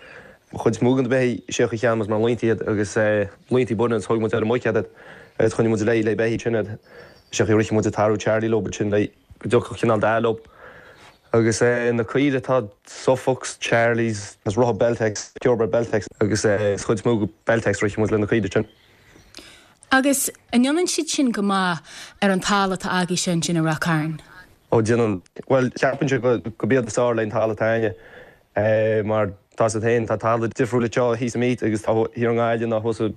An chuid is mó de na beithígh, sé an chaoi a cheannaigh muid mar laontaí iad agus laontaí baineann is thóg muid ar an muic iad agus choinnigh muid le le beithígh sin iad. Sé an chaoi a rithfeadh muid an tarbh Charlie leo sin le go dtiocfadh cineál dath leo. Agus na caoire tá Suffolks, Charlies agus rotha Beltex, purebred Beltex agus is chuid is mó Beltex rithfeadh muid le na caoire sin. Agus an ndéanann siad sin go maith ar an talamh atá agaibhse ansin i Rath Cairn? Ó déanann. Bhuel, ceapainnse go gurb iad is fearr leis an talamh atá againne mar tá 's agat féin, tá talamh difriúil anseo thíos i Meath agus tá thiar i nGaillimh ná thuas i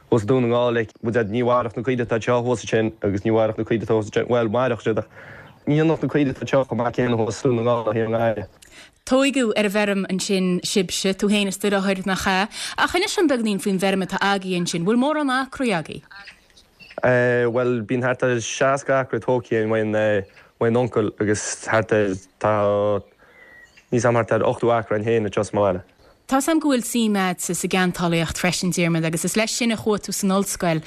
thuas i Dún na nGall like bhuel ní mhairfeadh na caoire atá anseo thuas ansin agus ní mhairfeadh na caoire atá thuas ansin, bhuel mairfeadh siad ach ní dhéanfadh na caoire atá anseo chomh maith céanna thuas i Dún na nGall ná thiar i nGaillimh. Tóigeadh ar an bhfeirm ansin sibhse, tú féin is do dheartháir, nach ea? Ach inis dom beagainín faoin bhfeirm atá agaibh ansin, bhfuil mórán acraí agaibh? Bhuel, bíonn thart ar 60 acra tógtha ag m'uncail agus thart ar, tá, níl 's a'm thart ar 80 acra againn féin anseo sa mbaile. Tá's a'm go bhfuil suim a'dsa sa gceantálaíocht freisin, Diarmuid, agus is leis sin a chuaigh tú san ollscoil.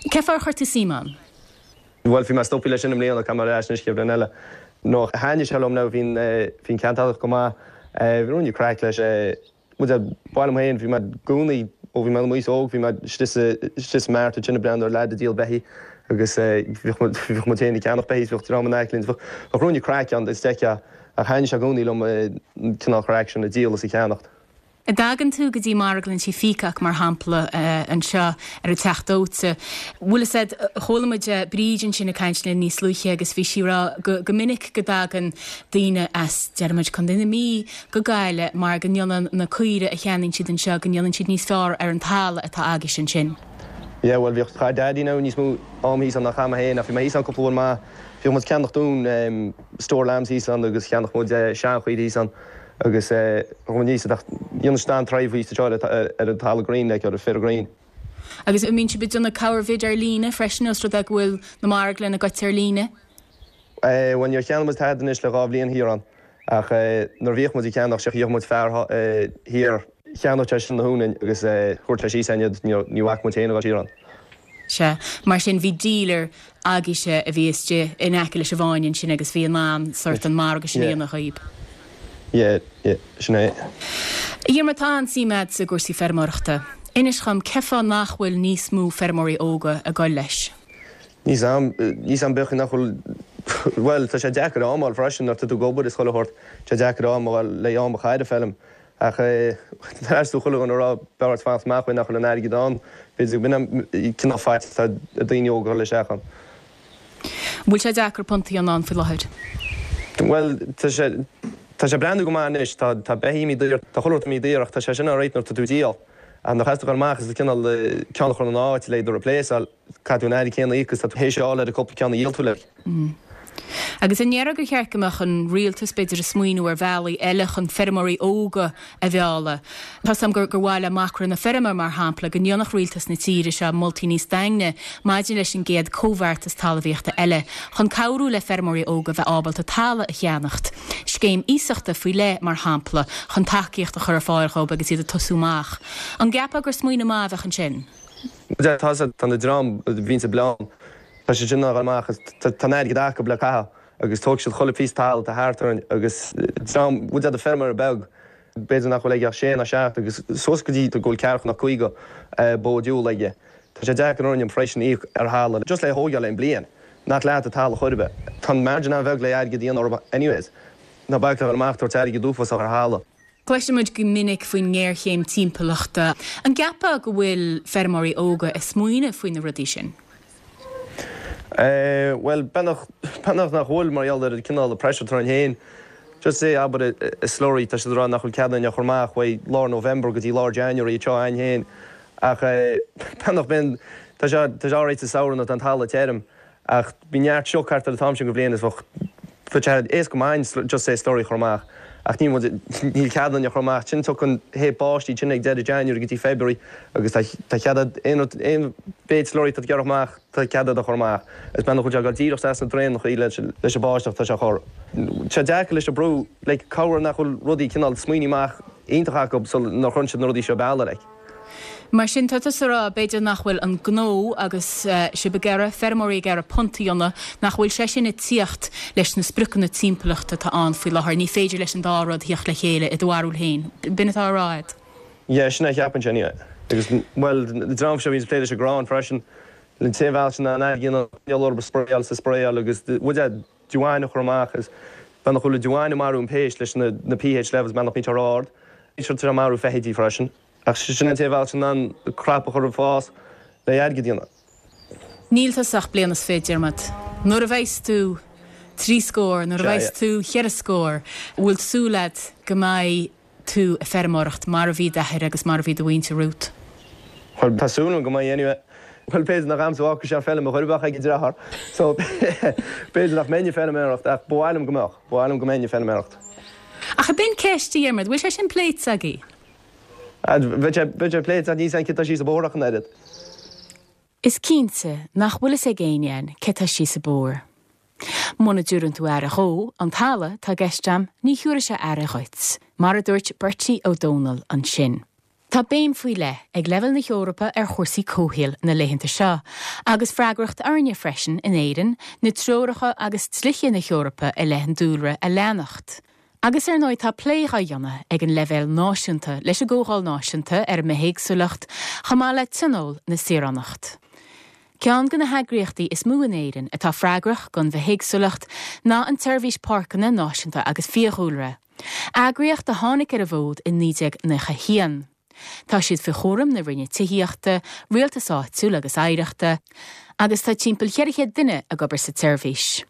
Cén fáth ar chuir tú suim ann? Bhuel, bhí mé stoptha leis sin i mbliana, caithfidh mé ar ais anois chéad bhliain eile. No, thaitnigh sé liom now, bhí an, bhí an ceantálaíocht go maith, bhí ruainne craic leis. Bhuel, ba mhaith liom féin, bhí mé i gcónaí, ó bhí mé i m'aois óg, bhí mé istigh sa, istigh sa mart ansin ag breathnú ar leaid ag díol beithígh agus bhíodh muid, bhíodh muid féin ag ceannach beithígh, bhíodh dream in aice linn, bheadh, bheadh ruainne craic ann is d'fheicfeá, ach thaitnigh sé i gcónaí liom an cineál craic sin, ag díol is ag ceannacht. An dtagann tú go dtí marglann Tí Peacock, mar shampla, anseo ar an Teach Dóite, bhfuil fhios a'd, chuala muid Bríd ansin ag caint linn níos luaithe agus bhí sí ag rá go, go minic go dtagann daoine as, déarfaidh muid, Contae na Mí go Gaillimh mar go ndéanann na caoire a cheannaíonn siad anseo, go ndéanann siad níos fearr ar an talamh atá agaibhse ansin. Yeah, bhuel bhíodh, chaith Daddy now níos mó am thíos ann ná chaith mé féin ach bhí mé thíos ann cúpla uair maith. Bhíodh muid ag ceannach dúinn store lambs thíos ann agus cheannach muid seanchaoire thíos ann agus thug muid níos ach dhéanadh siad an-tairbhe thíos anseo ar an talamh green like ar an féar green. Agus an mbíonn sibh ag déanamh corrbhid ar líne freisin os rud é go bhfuil na marglanna goite ar líne? Bhuel níor cheannaigh muid tada anois le 2 bhliain thiar ann ach nuair a bhíodh muid ag ceannach sé gheobhadh muid fear thiar cheannódh sé sin na huain agus thabharfadh sé síos againn iad ní bhfaca muid féin a dhul siar ann. Sea, mar sin bhí dealer agaibhse a bhí istigh in aice leis an bhFáinne ansin agus bhí in ann sort an margadh sin a dhéanamh dhaoib. Yeah, yeah, sin é. A Dhiarmaid, tá an-suim a'dsa i gcúrsaí feirmeoireachta. Inis dhom, cén fáth nach bhfuil níos mó feirmeoirí óga ag goil leis? Níl 's a'm, níl 's a'm b'fhéidir nach bhfuil, bhuel, tá sé deacair am a fháil freisin nuair tá tú ag obair is chuile shórt, tá sé deacair am a fháil le am a chaitheamh ar feilm. Ach tar éis do chuile dhuine a rá b'fhearr duit fanacht amach uaidh nach bhfuil an airgead ann, b'fhéidir go b'in an cineál faitíos atá ag daoine óga a dhul isteach ann. An bhfuil sé deacair punt a dhéanamh ann faoi láthair? Bhuel, tá sé, tá sé ag breathnú go maith anois. Tá, tá beithígh imithe daor, tá chuile shórt imithe daor ach tá sé sin alright nuair atá tú ag díol. Ach nuair a chaithfeas tú dhul amach is cineál ceann a chur ina áit le iad a replaceáil, Caithfidh tú an airgead céanna a íoc agus tá tú théis a fháil ar an cúpla ceann a dhíol tú like. Agus an ndéarfá gur cheart go mbeadh an rialtas, b'fhéidir, ag smaoineamh ar bhealaí eile chun feirmeoirí óga a mhealladh? Tá's agam gur gur mhaith le Macra na Feirme, mar shampla, go ndéanfadh rialtas na tíre seo moltaí níos daingne maidir leis an gcéad comhbheartas talmhaíochta eile chun cabhrú le feirmeoirí óga bheith ábalta talamh a cheannacht. Scéim iasachta faoi leith, mar shampla, chun tacaíocht a chur ar fáil dhóibh agus iad ag tosú amach. An gceapfá gur smaoineamh maith a bheadh ansin? Tá tá na dream a bhíonns ag bleán, tá siad sin ag dul amach agus tá an airgead acu le caitheamh agus tógfaidh siad chuile phíosa talamh atá thart orainn agus dream, bhfuil fhios a'd feirmeoir beag, b'fhéidir nach bhfuil aige ach sé ná seacht agus suas go dtí go bhfuil ceathracha ná 50 bó diúil aige. Tá sé deacair orainn freisin íoc ar thalamh just le thógáil aon bliain, nach leat an talamh chor ar bith. Tá an margin an-bheag le airgead a dhéanamh orthu anyways. Ná bac le dhul amach tabhairt airgead uafásach ar thalamh. Cloiseann muid go minic faoin ngéarchéim timpeallachta. An gceapfá go bhfuil feirmeoirí óga ag smaoineamh faoi na rudaí sin? Bhuel, beagnach, beagnach nach bhfuil mar gheall ar an cineál pressure atá orainn féin. Just say, abair, i slurry, tá siad ag rá nach bhfuil cead againn a chur amach uaidh lár November go dtí lár January anseo againn féin. Ach beagnach, bíonn, tá sé, tá sé alright sa samhradh nuair atá an talamh tirim. Ach bhí neart sioc thart ar an t-am sin go bhliain is bheadh sé éasca maith just say slurry a chur amach ach níl muid, níl cead againn a chur amach. Sin tiocfaidh an thaobh báistí sin ag deireadh January go dtí February agus tá tá cead a'd aon rud, aon mhéid slurry atá tú ag iarraidh amach tá cead a'd a chur amach. Is beagnach bhfuil sé ag dul díreach isteach sna draenachaí leis leis an báisteach tá sé a chur. Tá sé deacair leis an brú like cabhair nach bhfuil rudaí cineál smaoiní amach iontach acu sul nuair a chuireann siad na rudaí seo bealaigh like. Mar sin, tá tusa ag rá, b'fhéidir nach bhfuil an gnó agus sibh ag iarraidh, feirmeoirí ag iarraidh punt a dhéanamh, nach bhfuil sé sin ag tíocht leis na spriocanna timpeallachta atá ann faoi láthair. Ní féidir leis an dá rud thíocht le chéile i do bharúil féin. B'in atá á rá agat? Yeah, sin é a cheapainnse anyway. Agus, bhuel, an dream seo a bhíonns ag plé leis an gcrann freisin, an t-aon bhealach sin ná an airgead a dhéanamh orthu spraeáil is spraeáil agus, bhuel, yeah, damhán a chur amach is beagnach go bhfuil an damhán ag marú an péist leis na pH levels beagnach bíonn sé ró-ard. Bíonn sé ag marú feithidí freisin. Ach sin an t-aon bhealach in ann crop a chur ag fás le airgead a dhéanamh. Níl tusa ach bliain is fiche, Diarmuid. Nuair a bheas tú trí scór, nuair a bheas tú cheithre scór, bhfuil súil agat go mbeidh tú ag feirmeoireacht mar a bhí d'athair agus mar a bhí do mhuintir romhat? Bhuel, tá súil agam go mbeidh anyway. Bhuel, b'fhéidir nach a'msa a fhágfaidh sé an feilm a chor ar bith ag an deartháir. So, b'fhéidir nach mbeinn ag feilméaracht ach ba mhaith liom go mbeadh. Ba mhaith liom go mbeinn ag feilméaracht. Ach ab in ceist, a Dhiarmaid, bhfuil sé sin pléite agaibh? Bheadh sé, bheadh sé pléite ach níl 's a'm cé tá síos an bóthar ach an oiread. Is cinnte nach bhfuil fhios ag éinne againn cé tá síos an bóthar. Muna dtabhrann tú aire dhó, an talamh atá i gceist a'm, ní thiúrfaidh sé aire dhuit, mar a dúirt Bertie Ó Dónaill ansin. Tá béim faoi leith ag leibhéal na hEorpa ar chúrsaí comhshaoil na laethanta seo, agus freagracht orainne freisin in Éirinn na treoracha agus dlíthe na hEorpa i leith an dúlra a leanacht. Agus ar ndóigh tá plé dhá dhéanamh ag an leibhéal náisiúnta leis an gComhdháil Náisiúnta ar an mBithéagsúlacht chomh maith le Tionól na Saoránacht. Ceann de na heagraíochtaí is mó in Éirinn atá freagrach don bhithéagsúlacht ná an tSeirbhís Páirceanna Náisiúnta agus Fiadhúlra, eagraíocht a tháinig ar an bhfód i 1991. Tá siad faoi chúram na Roinne Tithíochta, Rialtais Áitiúil agus Oidhreachta agus tá timpeall 400 duine ag obair sa tseirbhís.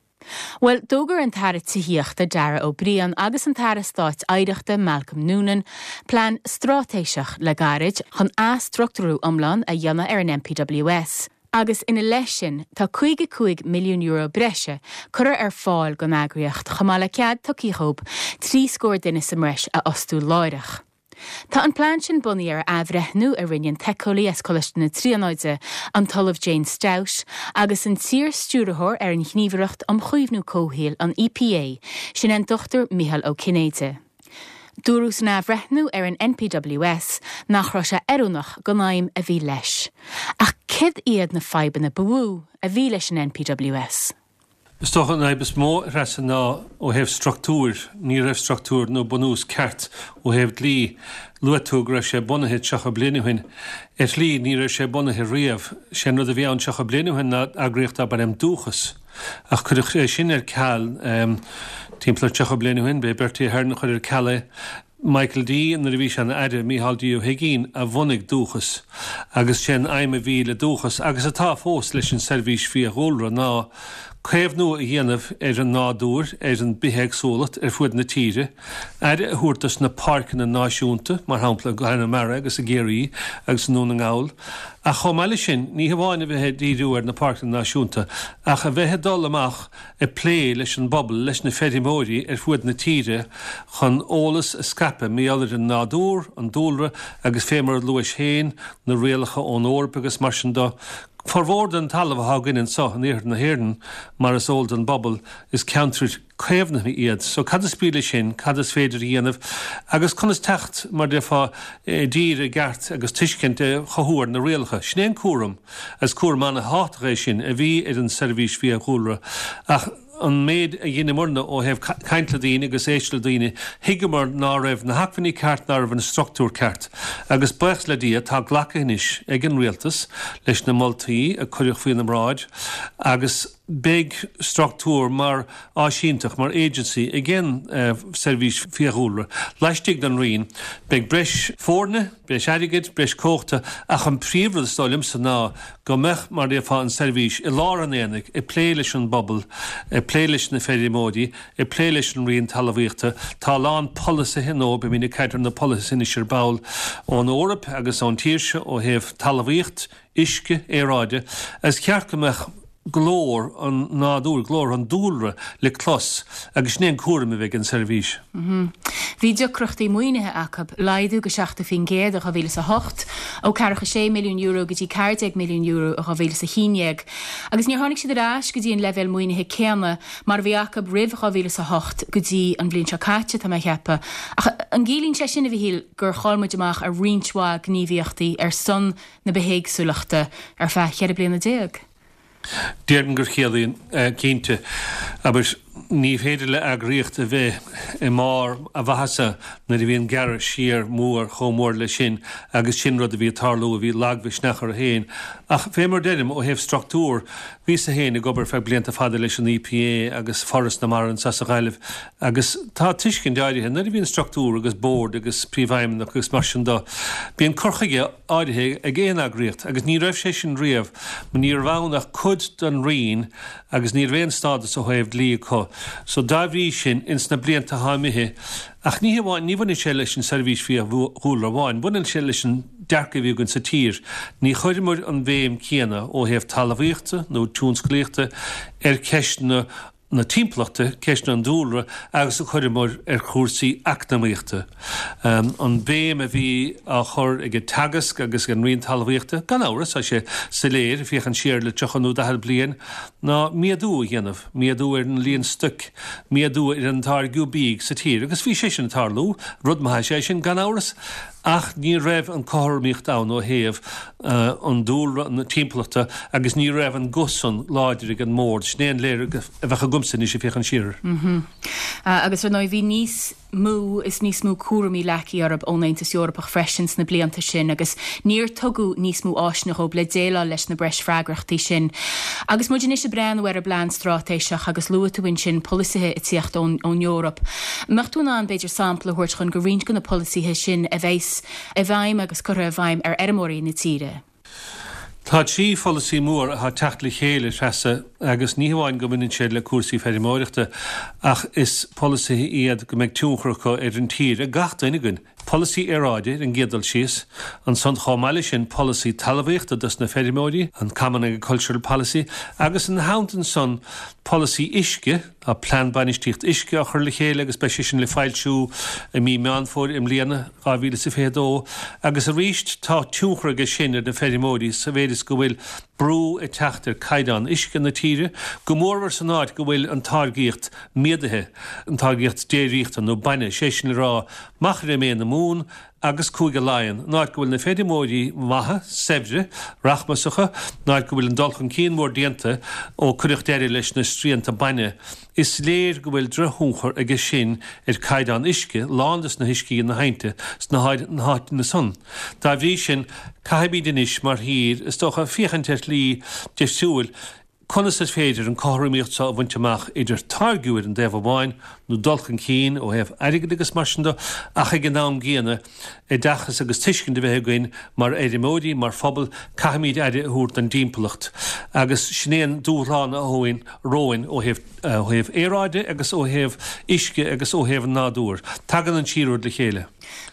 Bhuel, d'fhógair an tAire Tithíochta Darragh O'Brien agus an tAire Stáit Oidhreachta Malcolm Noonan plean straitéiseach le gairid chun athstruchtúrú iomlán a dhéanamh ar an NPWS agus ina leith sin tá €55 milliún breise curtha ar fáil don eagraíocht chomh maith le cead tugtha dhóibh trí scór duine sa mbreis a fhostú láithreach. Tá an plean sin bunaithe ar athbhreithniú a rinne an t-éiceolaí as Coláiste na Tríonóide, an tOllamh Jane Stout, agus an t-iar-stiúrthóir ar an Ghníomhaireacht um Chaomhnú Comhshaoil, an EPA, sin é an Dr Micheál Ó Cinnéide. Dúradh san athbhreithniú ar an NPWS nach raibh sé oiriúnach don aidhm a bhí leis. Ach céard iad na fadhbanna ba mhó a bhí leis an NPWS? Is dócha an fhadhb is mó, a Threasa, ná ó thaobh struchtúir. Ní raibh struchtúr nó bunús ceart ó thaobh dlí. Luaigh tú go raibh sé bunaithe 30 bliain ó shin. Ar shlí, ní raibh sé bunaithe riamh. Sé an rud a bhí ann 30 bliain ó shin ná eagraíocht darb ainm Dúchas. Ach cuireadh é sin ar ceal timpeall ar 30 bliain ó shin. B'é Bertie Ahern a chuir ar ceal é. Michael D, nuair a bhí sé ina Aire, Micheál D. Ó hUigínn a bhunaigh Dúchas agus sé an aidhm a bhí le Dúchas, agus atá fós leis an Seirbhís Fiadhúlra, ná caomhnú a dhéanamh ar an nádúr, ar an bithéagsúlacht ar fuaid na tíre, aire a thabhairt dos na páirceanna náisiúnta, mar shampla i gConamara agus i gCiarraí agus i nDún na nGall. Ach chomh maith leis sin, ní hamháin a bheith ag díriú ar na páirceanna náisiúnta ach a bheith ag dul amach ag plé leis an bpobal, leis na feirmeoirí ar fuaid na tíre chun eolas a scaipeadh mar gheall ar an nádúr, an dúlra agus fé mar a luais féin, na rialacha ón Eoraip agus mar sin do. Formhór den talamh athá againn anso in iarthar na hÉireann, mar is eol don bpobal, is ceantrair caomhnaithe iad. So cad is brí leis sin, cad is féidir a dhéanamh agus conas teacht, mar déarfá, i dtír i gceart agus tuiscint a chothú ar na rialacha. Sin é an cúram. Is cúram an-thábhachtach é sin a bhí ar an tSeirbhís Fiadhúlra ach an méid a dheineamarna ó thaobh caint le daoine agus éisteacht le daoine, thuigeamar ná raibh na hacmhainní ceart, ná raibh an struchtúr ceart. Agus buíochas le Dia tá glactha anois ag an Rialtas leis na moltaí a cuireadh faoina mbráid agus beidh struchtúr mar áisínteacht, mar agency ag an Seirbhís Fiadhúlra laistigh den Roinn. Beidh breis foirne, breis airgid, breis cumhachta ach an príomhrud is dóigh liomsa ná go mbeadh, mar a déarfá, an tseirbhís i lár an aonaigh, ag plé leis an bpobal, ag plé leis na feirmeoirí, ag plé leis an Roinn Talmhaíochta. Tá a lán polasaithe, nó beimid ag caint ar na polasaithe anois ar ball, ón Eoraip agus ón tír seo ó thaobh talmhaíocht, uisce, aeráide. Is ceart go mbeadh glór an nádúir, glór an dúlra le clos agus sin é an cúram a bheidh ag an seirbhís. Bhí deacrachtaí maoinithe acu, laghdú go 70% in 2008, ó €46 milliún go dtí €14 milliún in 2011, agus níor tháinig siad ar ais go dtí an leibhéal maoinithe céanna mar a bhí acu roimh 2008 go dtí an bhliain seo caite, tá mé a cheapadh. Ach an gciallaíonn sé sin, a Mhichíl, gur chaill muid amach ar roinnt mhaith gníomhaíochtaí ar son na bithéagsúlachta ar feadh 14 bliana? Déarfainn gur chiallaíonn, cinnte. Abair, ní féidir le eagraíocht a bheith i mbarr a mhaitheasa nuair a bhíonn gearradh siar mór chomh mór leis sin agus sin rud a bhí ag tarlú, a bhí lagmhisneach orthu féin. Ach fé mar deirim, ó thaobh struchtúr, bhíos-sa féin ag obair feadh blianta fada leis an EPA agus Foras na Mara anso sa Ghaillimh agus tá tuiscint áirithe, nuair a bhíonn struchtúr agus bord agus príomhfheidhmeannach agus mar sin do, bíonn cur chuige áirithe ag aon eagraíocht agus ní raibh sé sin riamh. Ní raibh ann ach cuid den Roinn agus ní raibh aon stádas ó thaobh dlí acu. So dá bhrí sin, ins na blianta atá imithe, ach ní hamháin, ní bhaineann sé leis an Seirbhís Fiadhúlra amháin, baineann sé leis an dearcadh a bhí againn sa tír. Ní chuireamar an bhéim céanna ó thaobh talmhaíochta nó tionsclaíochta ar cheisteanna na timpeallachta, ceisteanna an dúlra agus a chuireamar ar chúrsaí eacnamaíochta. An bhéim a bhí á chur ag Teagasc agus ag an Roinn Talmhaíochta, gan amhras, tá sé soiléir, ag féachaint siar le 30 nó 40 bliain, ná méadú a dhéanamh, méadú ar an líon stoic, méadú ar an táirgeadh bídh sa tír. Agus bhí sé sin ag tarlú, rud maith is ea sin, gan amhras, ach ní raibh an cothromaíocht ann ó thaobh an dúlra, na timpeallachta agus ní raibh an guth san láidir ag an mbord. Sin é an léargas a bheadh agamsa anois ag féachaint siar air. Agus ar ndóigh bhí níos mó is níos mó cúraimí leagtha orthu ón Aontas Eorpach freisin sna blianta sin agus níor tugadh níos mó áiseanna dhóibh le déileáil leis na breis freagrachtaí sin. Agus muid anois ag breathnú ar an bplean straitéiseach agus luaigh tú ansin polasaithe ag tíocht ón Eoraip, mbeadh tú in ann b'fhéidir sampla a thabhairt dhúinn de roinnt de na polasaithe sin a bheas i bhfeidhm agus curtha i bhfeidhm ar fheirmeoirí na tíre. Tá 3 pholasaí mór atá ag teacht le chéile, Treasa, agus ní hamháin go mbaineann siad le cúrsaí feirmeoireachta ach is polasaithe iad go mbeidh tionchar acu ar an tír, ar gach duine againn. Polasaí aeráide ar an gcéad dul síos, ansan chomh maith leis sin polasaí talmhaíochta dos na feirmeoirí, an Common Agricultural Policy, agus ina theannta ansan polasaí uisce, tá Plean Bainistíocht Uisce á chur le chéile agus beidh sé sin le foilsiú i mí Meán Fómhair i mbliana, 2022, agus arís tá tionchar aige sin ar na feirmeoirí sa mhéid is go bhfuil brú ag teacht ar caighdeán uisce na tíre, go mórmhór san áit go bhfuil an táirgíocht méadaithe, an táirgíocht déiríochta nó bainne, sé sin le rá Machaire Méith na Mumhan agus Cúige Laighean, an áit go bhfuil na feirmeoirí maithe, saibhre, rachmasacha, an áit go bhfuil an dul chun cinn mór déanta ó cuireadh deireadh leis na srianta bainne. Is léir go bhfuil drochthionchar aige sin ar caighdeán uisce, lán des na huiscí na haibhnte sna háiteanna san. Dá bhrí sin, caithfimid anois mar thír, is dócha, féachaint ar shlí difriúil, Conas is féidir an cothromaíocht seo a bhaint amach idir táirgiú ar an dtaobh amháin, nó dul chun cinn ó thaobh airgid agus mar sin de, ach ag an am gcéanna, oideachas agus tuiscint a bheith againn mar fheirmeoirí, mar phobal, caithfimid aire a thabhairt don dtimpeallacht. Agus sin é an dúshlán atá romhainn ó thaobh ó thaobh aeráide agus ó thaobh uisce agus ó thaobh an nádúir. Tagann an trí rud le chéile.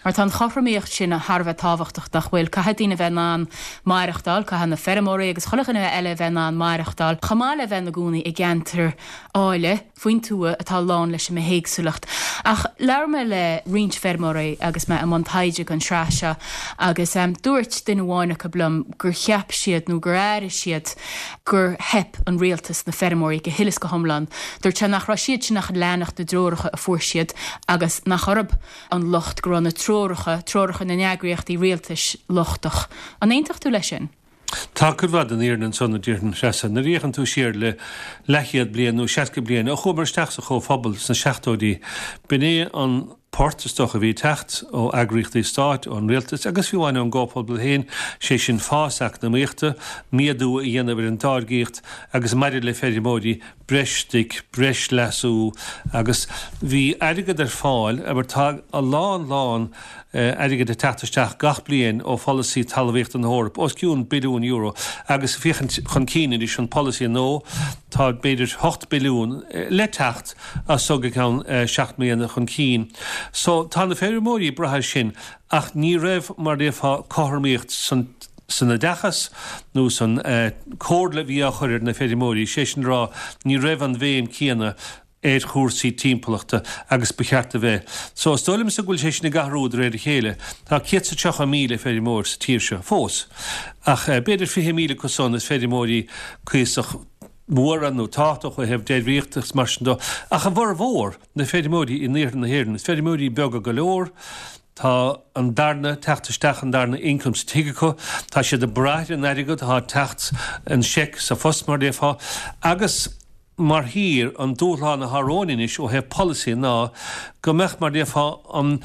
Mar tá an chothromaíocht sin thar a bheith tábhachtach, nach bhfuil? Caithfidh daoine a bheith in ann maireachtáil, caithfidh na feirmeoirí agus chuile dhuine eile a bheith in ann maireachtáil, chomh maith le bheith ina gcónaí i gceantar áille faoin tuath atá lán leis an mbithéagsúlacht. Ach labhair mé le roinnt feirmeoirí agus mé i mbun taighde don sraith seo agus dúirt duine amháin acu liom gur cheap siad nó gur airigh siad gur theip an rialtas na feirmeoirí go huile is go hiomlán. Dúirt sé nach raibh siad sin ach ag leanacht na dtreoracha a fuair siad agus nach orthu an locht go raibh na treoracha, treoracha na n-eagraíochtaí rialtais, lochtach. An aontódh tú leis sin? Tá cuid mhaith den fhírinne ansan, a déarfainn, a Threasa. Nuair a fhéachann tú siar le leathchéad bliain nó 60 bliain, ó chuamar isteach sa Chomhphobal sna seachtóidí, b'in é an port, is dócha, a bhí ag teacht ó eagraíochtaí stáit, ón rialtas agus fiú amháin ón gComhphobal féin, sé sin fás eacnamaíochta, méadú a dhéanamh ar an dtáirgíocht agus maidir le feirmeoirí, breis stoic, breis leasú agus bhí airgead ar fáil, abair tá a lán lán airgid ag teacht isteach gach bliain ó pholasaí talmhaíochta na hEorpa, os cionn billiún euro agus féachaint chun cinn anois an polasaí nua, tá b'fhéidir 8 billiún le teacht as so go ceann 7 mbliana chun cinn. So tá na feirmeoirí ag brath air sin ach ní raibh mar a déarfá cothromaíocht san san oideachas nó san comhairle a bhí á chur ar na feirmeoirí, sé sin le rá, ní raibh an bhéim céanna ar chúrsaí timpeallachta agus ba cheart a bheith. So, is dóigh liomsa go bhfuil sé sin ag athrú de réir a chéile. Tá 130,000 feirmeoir sa tír seo fós, ach b'fhéidir 20,000 acu san is feirmeoirí cuíosach móra nó tábhachtach ó thaobh déiríochta agus mar sin de, ach a bhformhór, na feirmeoirí in iarthar na hÉireann, is feirmeoirí beaga go leor, Tá an darna teacht isteach, an darna income sa tigh acu, tá siad ag brath ar an airgead atá ag teacht, an seic sa phost mar a déarfá, agus mar thír, an dúshlán atá romhainn anois ó thaobh polasaí ná go mbeadh, mar a déarfá, an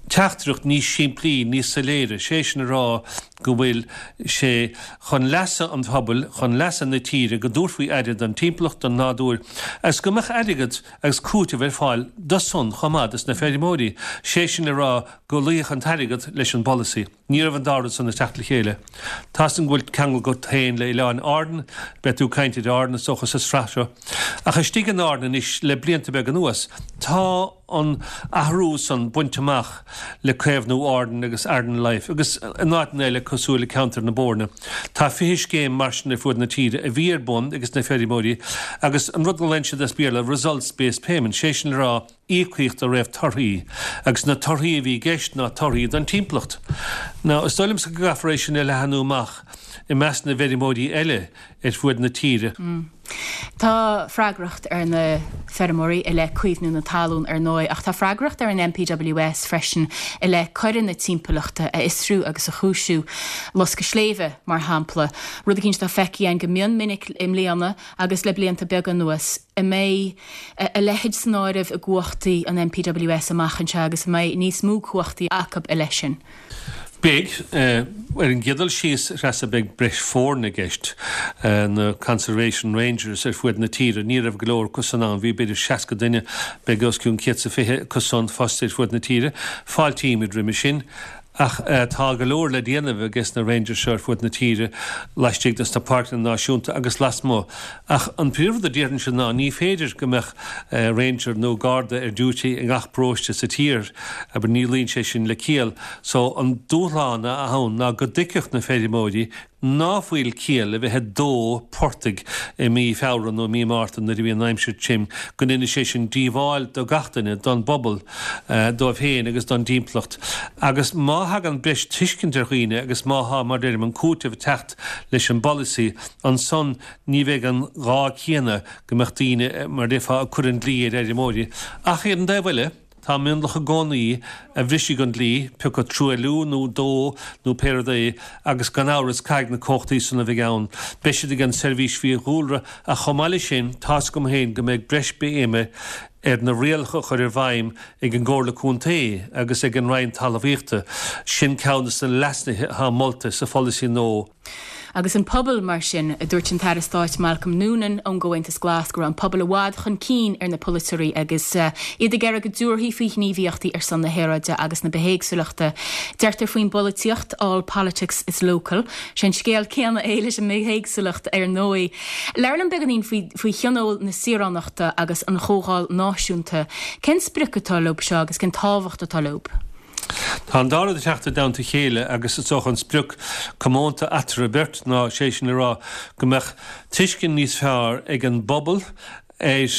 teachtaireacht níos simplí, níos soiléire, sé sin a rá go bhfuil sé chun leasa an phobail, chun leasa na tíre go dtabharfaí aire don timpeallacht, don nádúr, agus go mbeadh airgead agus cúiteamh ar fáil do san chomh maith dos na feirmeoirí, sé sin le rá go luífeadh an t-airgead leis an bpolasaí. Ní raibh an dá rud san ag teacht le chéile. Tá's agam go bhfuil ceangal agat féin le Oileáin Árann, beidh tú ag caint ar Árainn is dócha sa sraith seo. Ach istigh in Árainn anois le blianta beaga anuas, tá an athrú san bainte amach le Caomhnú Árann agus Aran Life agus in áiteanna eile cosúil le ceantar na Boirne. Tá 20 scéim mar sin ar fuaid na tíre a bhí ar bun ages na feirmeoirí agus an rud go nglaonn siad as Béarla results based payment, sé sin le rá íocaíocht de réir torthaí agus na torthaí a bhí i gceist ná torthaí don timpeallacht. Now is dóigh liomsa go gcaithfear é sin a leathanú amach i measc na bhfeirmeoirí eile ar fuaid na tíre. Tá freagracht ar na feirmeoirí i leith caomhnú na talún, ar ndóigh, ach tá freagracht ar an NPWS freisin i leith coireanna timpeallachta a fhiosrú agus a chúisiú. Loscadh sléibhe, mar shampla, rud eicínt atá feicthe againn go mion minic i mbliana agus le blianta beaga anuas. An mbeidh a leithéid san áireamh i gcumhachtaí an NPWS amach anseo agus an mbeidh níos mó cumhachtaí acu i leith sin? Beidh. Ar an gcéad dul síos, a Threasa, beidh breis foirne i gceist. Na Conservation Rangers ar fuaid na tíre, ní raibh go leor acu san ann, bhí b'fhéidir 60 duine, beidh os cionn 120 acu san fostaithe ar fuaid na tíre. Fáiltímid roimhe sin. Ach tá go leor le déanamh ages na Rangers seo ar fud na tíre, laistigh des na páirceanna náisiúnta agus lasmuigh. Ach an príomhrud a déarfainnse ná ní féidir go mbeadh Ranger nó Garda ar duty i ngach paróiste sa tír, abair, ní luíonn sé sin le ciall. So an dúshlán atá ann ná go dtuigfeadh na feirmeoirí ná fuil ciall le bheith ag dó portaigh i mí Feabhra nó i mí Márta nuair a bhíonn an aimsir tirim, go ndéanann sé sin díobháil do gach duine, don bpobal, dóibh féin agus don dtimpeallacht. Agus má thagann breis tuiscint ar dhaoine agus má thá, mar deirim, an cúiteamh ag teacht leis an bpolasaí, ansan ní bheidh an gá céanna go mbeadh daoine, mar déarfá, ag cur an dlí ar fheirmeoirí. Ach ar an dtaobh eile, Tá mionlach i gcónaí a bhrisfidh an dlí, pé acu truailliú nó dó nó pé rud é, agus gan amhras caithfidh na comhachtaí san a bheidh ann, beidh siad ag an Seirbhís Fiadhúlra ach chomh maith leis sin tá's agam féin go mbeidh breis béime ar na rialacha a chur i bhfeidhm ag an gComhairle Contae agus ag an Roinn Talmhaíochta. Sin ceann de na leasnuithe atá molta sa pholasaí nua. Agus an pobal, mar sin, a dúirt an tAire Stáit Malcolm Noonan ón gComhaontas Glas go raibh an pobal i bhfad chun cinn ar na polaiteoirí agus iad ag iarraidh go dtabharfaí faoi ghníomhaíochtaí ar son na haeráide agus na bithéagsúlachta. Deirtear faoin bpolaitíocht, all politics is local. Sé an scéal céanna é leis an mbithéagsúlacht ar ndóigh. Labhair liom beagáinín faoi faoi Thionól na Saoránachta agus an Chomhdháil Náisiúnta. Cén sprioc atá leo seo agus cén tábhacht atá leo? Tá an dá rud ag teacht i dteannta a chéile agus is dócha an sprioc comónta eatarthu beirt ná sé sin le rá go mbeadh tuiscint níos fearr ag an bpobal ar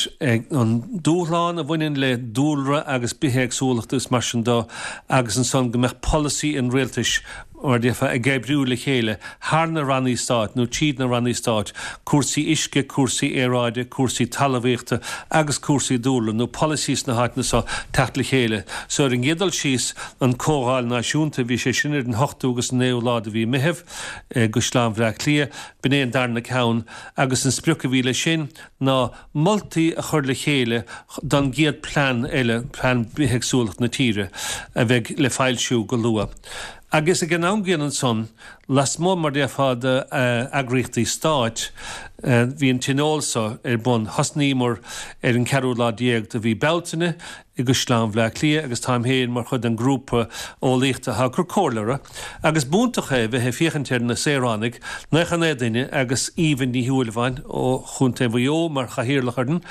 an dúshlán a bhaineann le dúlra agus bithéagsúlacht agus mar sin de agus ansan go mbeadh polasaí an rialtais mar a déarfá, ag oibriú le chéile thar na rannaí stáit nó tríd na rannaí stáit, cúrsaí uisce, cúrsaí aeráide, cúrsaí talmhaíochta agus cúrsaí dúlra nó polasaí sna háiteanna so teacht le chéile. So ar an gcéad dul síos, an Comhdháil Náisiúnta, bhí sé sin ar an ochtú agus an naoú lá de mhí Meitheamh i gCaisleán Bhleá Cliath, b'in é an darna ceann agus an sprioc a bhí leis sin ná moltaí a chur le chéile don gcéad plean eile, plean bithéagsúlachta na tíre, a bheidh le foilsiú go luath. Agus ag an am gcéanna ansan, lasmuigh, mar déarfá, d'eagraíochtaí stáit, bhí an tionól so ar bun. Thosnaíomar ar an ceathrú lá déag de mhí Bealtaine i gCaisleán Bhleá Cliath agus táim féin mar chuid den ghrúpa eolaíochta atá ag cur comhairle orthu. Agus b'iontach é bheith ag féachaint ar na saoránaigh, 99 duine agus Aoibhinn Ní Shúilleabháin ó Chontae Mhaigh Eo mar chathaoirleach orainn,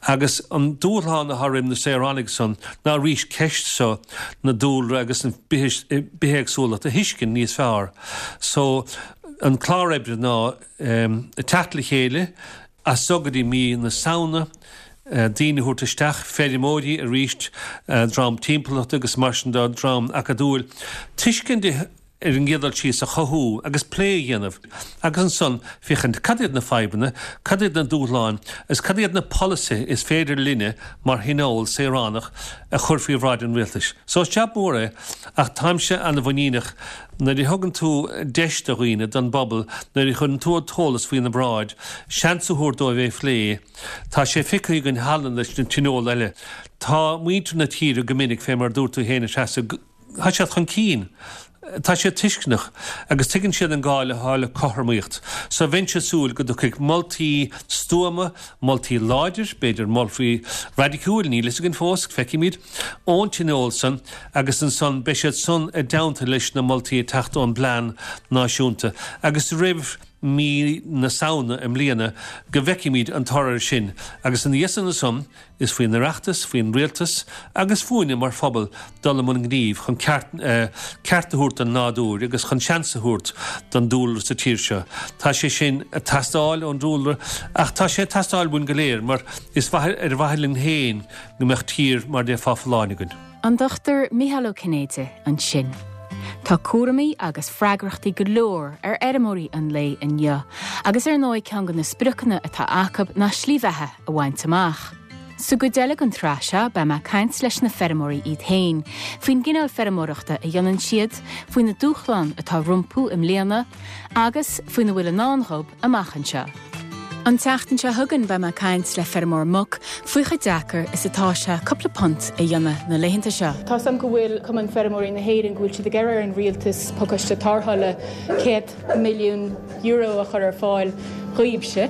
agus an dúshlán atá roim na saoránaigh san ná arís ceist so na dúlra agus an bithéagsúlacht a thuiscint níos fearr. So, an clár oibre ná teacht le chéile, As so go dtí mí na Samhna, daoine a thabhairt isteach, feirmeoirí arís, dream timpeallachta agus mar sin de, dream acadúil, tuiscint ar an gcéad dul síos a chothú agus plé a dhéanamh agus ansan féachaint cad iad na fadhbanna, cad iad na dúshláin agus cad iad na polasaithe is féidir linne mar thionól saoránach a chur faoi bhráid an rialtais. So is jab mór é ach táimse ana-mhuiníneach Nuair a thugann tú deis do dhaoine, don bpobal, nuair a chuireann tú an t-eolas faoina bráid, seans a thabhairt dóibh é a phlé, tá sé feicthe againn cheana leis na tionóil eile. Tá muintir na tíre go minic, fé mar a dúirt tú féin, a Threasa, tá siad chun cinn, tá siad tuisceanach agus tuigeann siad an gá atá le cothromaíocht. So bheinnse ag súil go dtiocfaidh moltaí stuama, moltaí láidir, b'fhéidir moltaí raidiciúil, níl fhios againn fós, feicfimid. ón tionól san agus ansan beidh siad san i dteannta leis na moltaí ag teacht ón bplean náisiúnta agus roimh mí na Samhna i mbliana go bhfeicfimid an toradh air sin agus ina dhiaidh san ansan is faoin Oireachtas, faoin Rialtas agus fúinne mar phobal dul i mbun gnímh chun ceart ceart a thabhairt don nádúr agus chun seans a thabhairt don dúlra sa tír seo. Tá sé sin ag teastáil ón dúlra ach tá sé ag teastáil uainn go léir mar is ar mhaithe linn féin go mbeadh tír mar déarfá folláin againn. An Dr Micheál Ó Cinnéide ansin. Tá cúraimí agus freagrachtaí go leor ar fheirmeoirí an lae inniu agus ar ndóigh ceann de na spriocanna atá acu ná slí bheatha a bhaint amach. Sa gcuid eile den tsraith seo beidh mé ag caint leis na feirmeoirí iad féin faoin gcineál feirmeoireachta a dhéanann siad, faoi na dúshláin atá rompu i mbliana agus faoina bhfuil i ndán dhóibh amach anseo. An tseachtain seo chugainn beidh mé ag caint le feirmeoir muc faoi chomh deacair is atá sé cúpla punt a dhéanamh na laethanta seo. Tá 's agam go bhfuil Cumann Feirmeoirí na hÉireann go bhfuil siad ag iarraidh ar an rialtas pacáiste tarrthála €100 milliún a chur ar fáil. dhaoibhse,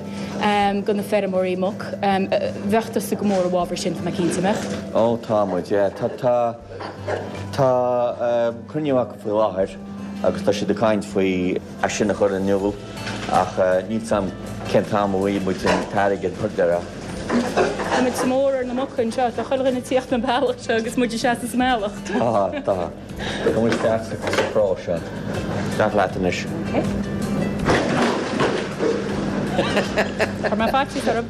do na feirmeoirí muc. Bheadh tusa go mór i bhfabhar sin, tá mé cinnte, an mbeadh? Ó, tá muid, yeah. Tá, tá, tá cruinniú acu faoi láthair agus tá siad ag caint faoi é sin a chur in iúl ach níl 's a'm cén t-am a bhfaighidh muid an t-airgead mar déarfá. Tá muid sa mór ar na muca anseo, tá chuile dhuine ag tíocht an bealach seo agus muid ag seasamh sa mbealach. Tá, tá. Tá muid isteach sa chró seo. Isteach leat anois. Chuir mé faitíos orm.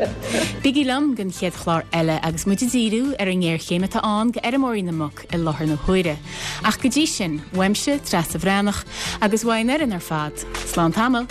Bígí liom don chéad chlár eile agus muid ag díriú ar an ngéarchéim atá ann do fheirmeoirí na muc i láthair na huaire. Ach go dtí sin, uaimse, Treasa Bhreathnach, agus uaidh an fhoireann ar fad, slán tamall!